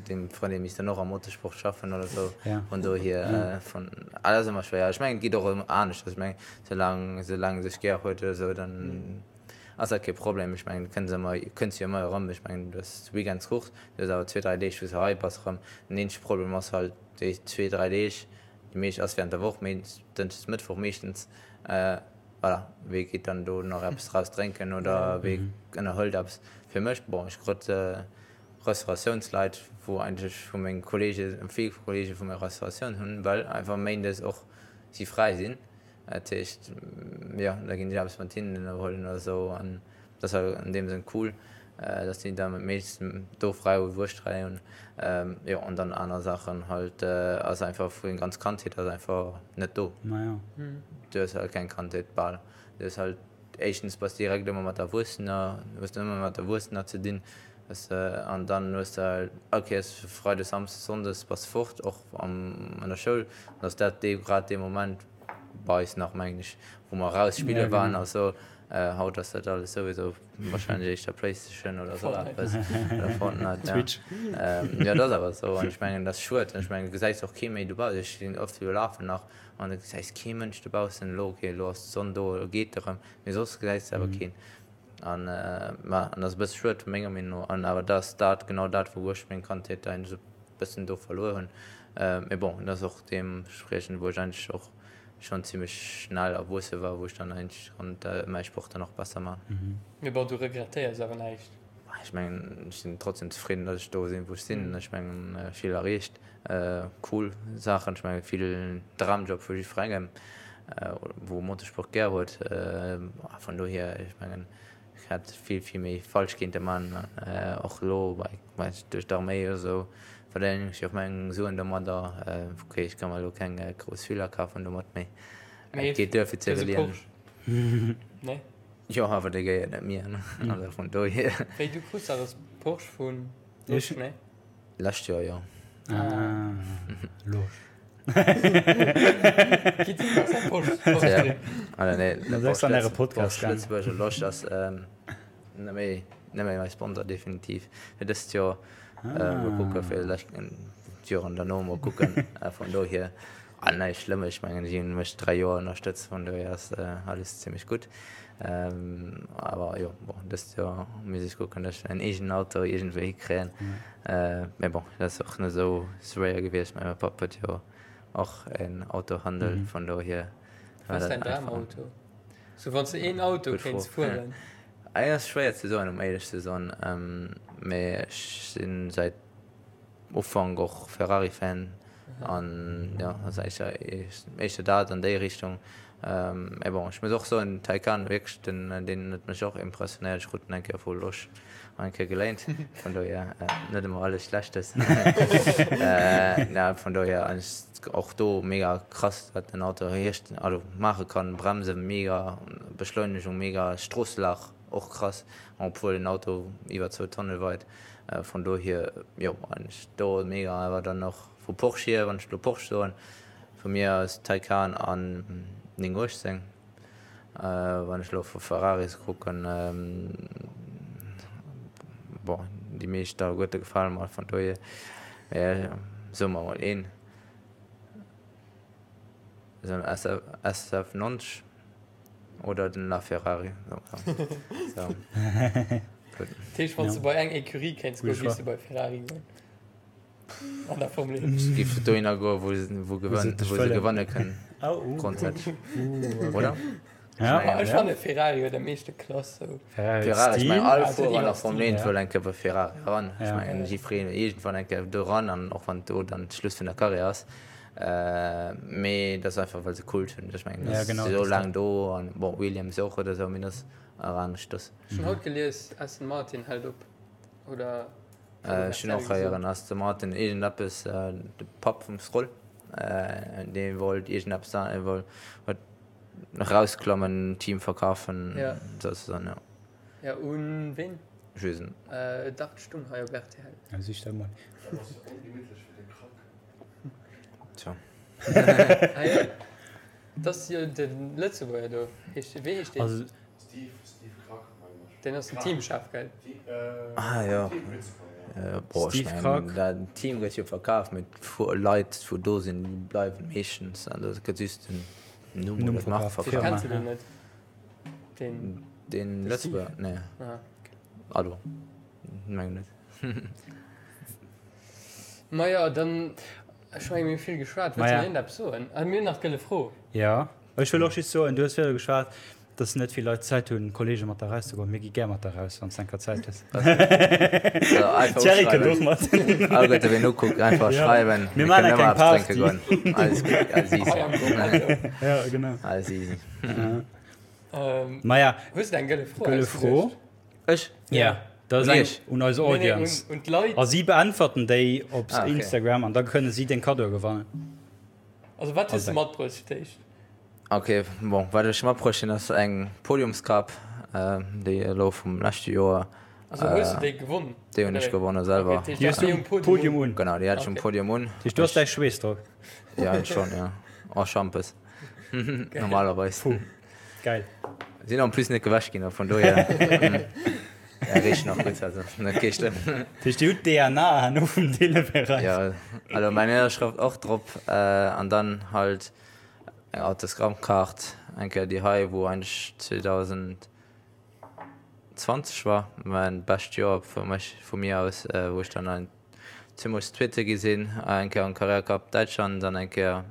deng Frëndin misst dann och am Motorsport schaffen oder sou. Vun dohier, vun, ah, dat ass ëmmer schwéier. Ech mengen, et geet och ëm anescht. Ech mengen, soulaang, soulaang e sech gär huet oder sou, dann ass dat kee Problem. Ech mengen, du kënns ëmmer, kënns jo ëmmer erëm. Ech mengen, du hues Weekends Course, du hues awer zwee, dräi Deeg, wou s de hei bass erëm. Den eenzege Problem ass halt déi zwee, dräi Deeg, Déi meescht ass während der Woch, Dënschdes, Mëttwoch meeschtens. Voilà, wee geet dann do nach eppes draus drénken oder wee ënnerhëlt eppes? Fir mech, bon, ech krut Restauratiounsleit, wou eigentlech vu menge Kollege, vill Kollege vu mir Restauratioun hunn, well einfach méindes och si fräi sinn. Dat heescht, jo, da ginn ech eppes mat hinnen ënnerhuelen oder esou an dat ass an deem Sënn cool, dass déi da meeschtens do fräi hunn, wou ech fräi hunn. Jo, an dann aner Saachen halt ass einfach vu eng ganz Kandheet ass einfach net do. Du hues halt keng Kandheet bal. Du hues halt éischtens bass direkt ëmmer mat Erwuessener, hues de ëmmer mat Erwuessener ze dinn, weess de, an dann hues de halt all Kéiers Freides, Samsdes, Sonndes bass de fort, och am an der Schoul, an ass dat dee grad dee Moment bei eis nach mengen ech, wou mer raus spille waren a sou. Haut ass dat alles souwisou wahrscheinlech éischter Playstation oder sou eppes oder Fortnite, ja. Twitch. Jo, dat ass awer sou an ech mengen, dat ass schued an ech mengen, du gesäis och kee méi dobaussen. Ech sinn oft jo lafen nach an du gesäis kee Mënsch dobaussen. Elo, okay, elo ass d'Sonn do, elo geet erëm, mee soss gesäis de awer keen. An ma an dat ass e bësse schued menger Meenung no. An awer dat ass dat genau dat, wou ech meng Kandheet eigentlech e bëssen do verluer hunn. Mee bon, dat ass och deemtspriechend, wou ech eigentlech och schonn zimmlech schnell erwuesse war, wou ech dann eigentlech konnt mäi Sport dann och besser man. Mee bon, du regrettéiers awer näischt? Ech mengen, ech sinn trotzdem zefridden, datt ech do sinn, wou ech sinn. Ech mengen, vill erreecht, cool Saachen. Ech mengen, vill Dramjob vu jiddwerengem, wou Motorsport gär huet. Vun dohier, ech mengen, Ech hätt vill, vill méi falsch kéinte man, och elo bei duerch d'Arméi oder esou verdéngen ech jo och meng Suen domadder. Ok, ech ka mer elo keng grouss Villa kafen domat, mee et geet duer fir ze iwwerliewen. Nee? Jo, awer dee gehéiert net mir, also vun dohier. Wéi, du krus dach e Porsche vun Losch, nee? Lescht Joer, jo. Ah, Losch. Lëtzebuerger Losch ass net méi net méi mäi Sponsor definitiv fir dëst Joer. Mol kucke fir d'Joren derno mol kucken. Vun dohier näischt Schlëmmes. Ech mengen si hunn mech 3 Joer ënnerstëtzt, vun dohier ass alles zimmlech gutt. Awer jo bon dëst Joer misst ech kucken, datt ech en eegenen Auto iergendwéi hikréien. Mee bon, dat ass och net esou schwéier gewiescht. Mäi Papp huet jo och en Autohandel, vun dohier war dat einfach. Wat ass däin Dramauto? Sou wann s de een Auto kéints fueren? Et ass schwéier ze soen, um éierlech ze soen. Mee ech si säit Ufank och Ferrari-Fan an jo, ass éischter éischter dat an déi Richtung. Mee bon, ech muss och soen, Taycan wierklech, den deen huet mech och impressionéiert. Ech krut en eng Kéier vu Losch eng Kéier geléint, vun dohier net ëmmer alles Schlechtes. Na vun dohier och do mega krass, wat den Auto hierst also maache kann, Bremse mega, Beschleunegung mega, Stroosslag och krass, obwuel den Auto iwwer zwou Tonne weit. Vun dohier jo eigentlech do mega, awer dann och vu Porsche hier, wann ech elo Porsche soen, Vu mir aus Taycan an 918. Wann ech elo vu Ferraris kucken, bon déi meescht alleguerte gefale mer, vun dohier soe mer mol een, esou en SF90 oder den LaFerrari. Dat heescht, wann s de bei eng Ecurie kéints goen, géifs de bei Ferrari goen? An der Formel 1. Ech géif dohinner goen, wou se, wou gewënn, wou se gewanne kënnen. Grondsätzlech. Oder? Ja. Ech fanne Ferrari huet am meeschte Klass. Sou. Ferrari, ech mengen all Fuerer an der Formel 1 wëll eng Kéier bei Ferrari eran. Ech mengen jiddwereen iergendwann eng Kéier do eran an och wann do dann d'Schluss vun der Karriär ass. Mee dat ass einfach well se Kult hunn. Ech mengen dat ass esou laang do an bon Williams och oder esou, mee dat ass nach aneschters. Ech hunn haut gelies, Aston Martin hält op, oder? Ech hunn och héieren Aston Martin iergendeppes, de Papp vum Stroll, dee wollt iergendeppes da, e wollt erausklammen, Team verkafen, souzesoen, jo. Ja, un ween? Ech weess et net. Dach, et stung hei op rtl. Ja, sich dat mol. Dat ass jo ongemittlech fir de Krack. Tja. Ah jo, dat ass jo de Lëtzebuerger do. Heescht, wéi heescht deen? Steve, Steve Krack, mengen ech. Deen ass den Teamchef, gell? Ah jo. Boah, ech mengen, dat Team gëtt jo verkaf, mee d'Leit, wou do sinn, déi bleiwen meeschtens. An do gëtt just den Numm oder d'Mark verkaf. Kenns du deen net? Deen. Deen Lëtzebuerger? Nee. Also, mengen net. Maja, dann, ech mengen, mir hu vill geschwat. Wëlls du nach iergendeppes soen? Ah, mir hunn nach d'gëlle Fro. Jo. Ech wëll och just soen, du hues virdru geschwat, dass net vill Leit Zäit hunn, Kollege mat der erauszegoen. Mir gi gär mat der eraus, wann s de eng Kéier Zäit hues. Thierry kënnt och mat. Alleguerte wien ukuckt, einfach schreiwen. Mir maachen eng kleng Party. Alles gutt, alles easy. Ja, genau. Alles easy. Maja. Hues de eng gëlle Fro? Gëlle Fro? Ech? Ja, dat ass eng un eis Audience. Un d'Leit. A si beäntwerten déi op Instagram an da kënne si deng Kaddoe gewannen. Also wat hues de matbruecht fir d'éischt? Ok, bon, wat ech matbruecht hunn ass eng Podiumskap, déi elo vum leschte Joer. Also hues de déi gewonn? Déi hunn ech gewonne selwer. Ok, déi hues du um Podium un? Genau, déi hat ech um Podium un. Dat heescht du has däi Schweess drop? Jo, schonn, jo. En Schampes, normalerweis. Puh, geil. Sinn en plus net gewäsch ginn, vun dohier. Ja, richt nach gutt, also net kee schlëmm. Dat heescht, Dir hutt d'DNA herno vum Deeleberäich. Jo, also mäin Ënnerschrëft och drop an dann halt eng Autogrammkaart, eng Kéier déi hei, wou eigentlech 2020 war mäin bescht Joer fir mech, vu mir aus, wou ech dann ein zweemol Zweete gi sinn, eng Kéier am Carrera Cup Däitschland an eng Kéier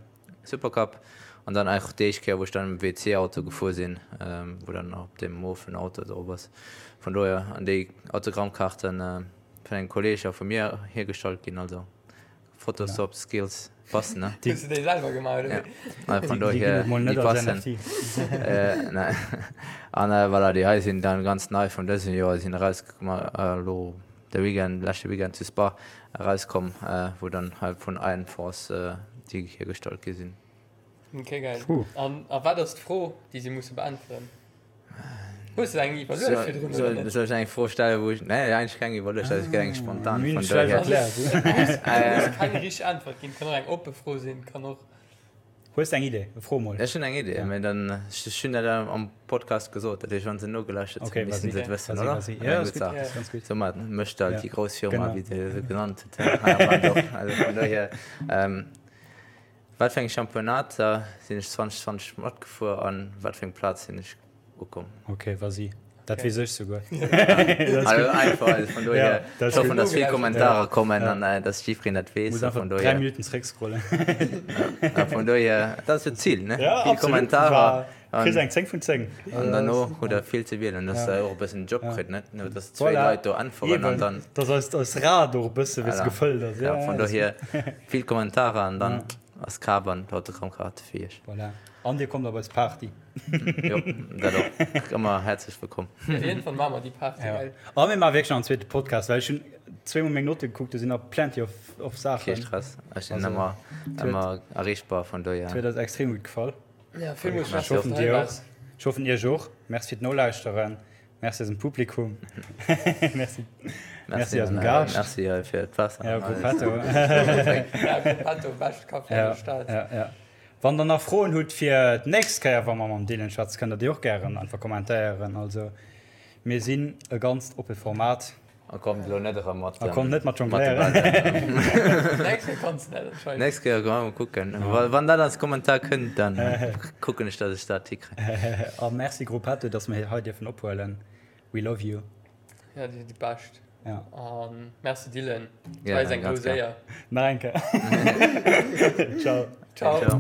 Supercup an dann och déi éischt Kéier wou ech dann am WC Auto gefuer sinn, wou dann och op deem mofen Auto drop ass. Vun dohier an déi Autogrammkaarten vun engem Kolleg a vu mir hiergestallt ginn, also Photoshop Skills passen ne. Hues du déi selwer gemaach oder wéi? Ja, vun dohier déi passen. An voilà, déi hei sinn dann ganz nei vun dësem Joer, sinn erausgekomm elo de Weekend, leschte Weekend zu Spa erauskomm, wou dann halt vun Iron Force déi hiergestallt gi sinn. Ok, geil. An a wat ass d'Fro, déi si musse beäntweren? Hues de eng iwwerluecht virdrun oder net? Soll ech eng Fro stellen, wou ech, nee, eigentlech keng iwwerluecht, dat ass eng spontan. Mir hunn et schlecht erkläert. Et muss keng richteg Äntwert ginn, kann och eng oppe Fro sinn, kann och. Hues de eng Idee? Fro mol. Ech hunn eng Idee, mee dann, ech hunn dat am Podcast gesot, dat heescht, wann se nogelauschtert hunn, Okay, missten vas-y. se et wëssen, Vas-y, oder? vas-y. Eng Ja, gutt ass gutt, Saach. ass ganz gutt. Soumat mécht alt Ja, déi grouss Firma, genau. wéi se se genannt huet, hei am Land och. Also vun dohier, wat fir eng Championnater sinn ech 2020 matgefuer an wat fir eng Plaz sinn ech ukomm? Okay, vas-y. Dat weess ech souguer. Also einfach, also vun dohier, Ja, ech hoffen, dass vill Kommentarer kommen Ja. an äh, dass jiddwereen dat weess. Muss A einfach vun 3 dohier, Minuten zréckscrollen. a vun dohier, dat ass jo d'Zil, ne? Ja, Vill absolut. Kommentarer War, an, kriss eng 10 vun 10. an derno hutt der vill ze wielen, dass Ja. der och e bëssen Job Ja. kritt, net? Nur dass zwéi Voilà. Leit do äntweren an Eben, dann, dass eist, eist Rad och e bësse, weess Voilà. gefëllt ass. ja, vun das- dohier vill Kommentarer an dann Ja. Ass kaf an d'Autogrammkaarte fir iech. Voilà. An dir kommt op eis Party. Jo, dat och. Ëmmer häerzlech wëllkomm. Op jeden Fall maache mer déi Party, Ja. gell? A mir maache wierklech nach en zweete Podcast, well ech hunn zweemol meng Notte gekuckt, do sinn nach plenty of, of Kee Saachen. Stress, ech sinn Also, ëmmer, et huet, ëmmer erreechbar, vun et dohier. huet eis extrem gutt gefall. Ja, villmools Ech Merci, dass hoffen du hei dir och. waars. Ech hoffen iech och. Merci fir d'Nolauschteren. Merci eisem Publikum. Merci. Merci eisem Gaascht. Merci fir d'Waasser. Ja, Gruppetto. Ja, Gruppetto, bescht Café an Ja, der Stad. ja, ja. Wann der nach Froen hutt fir d'nächst Kéier, wa mer mam Dylan schwätzen, kënnt der déi och gären einfach kommentéieren. Also mir sinn e ganzt oppe Format. A kommt elo net erëm mat A kommt net mat jongléieren. Nächst Kéier kanns de dat anscheinend. Nächst Kéier mol kucken. Wann dat als Kommentar kënnt, dann kucken ech, datt ech dat hikréien. A merci Gruppetto, datt mer hei dierfen ophuelen. We love you. Ja, dir sidd déi Bescht. Ja. A merci Dylan. Et war eis eng grouss Éier. Nach eng Kéier. Ciao. Ciao. Ciao.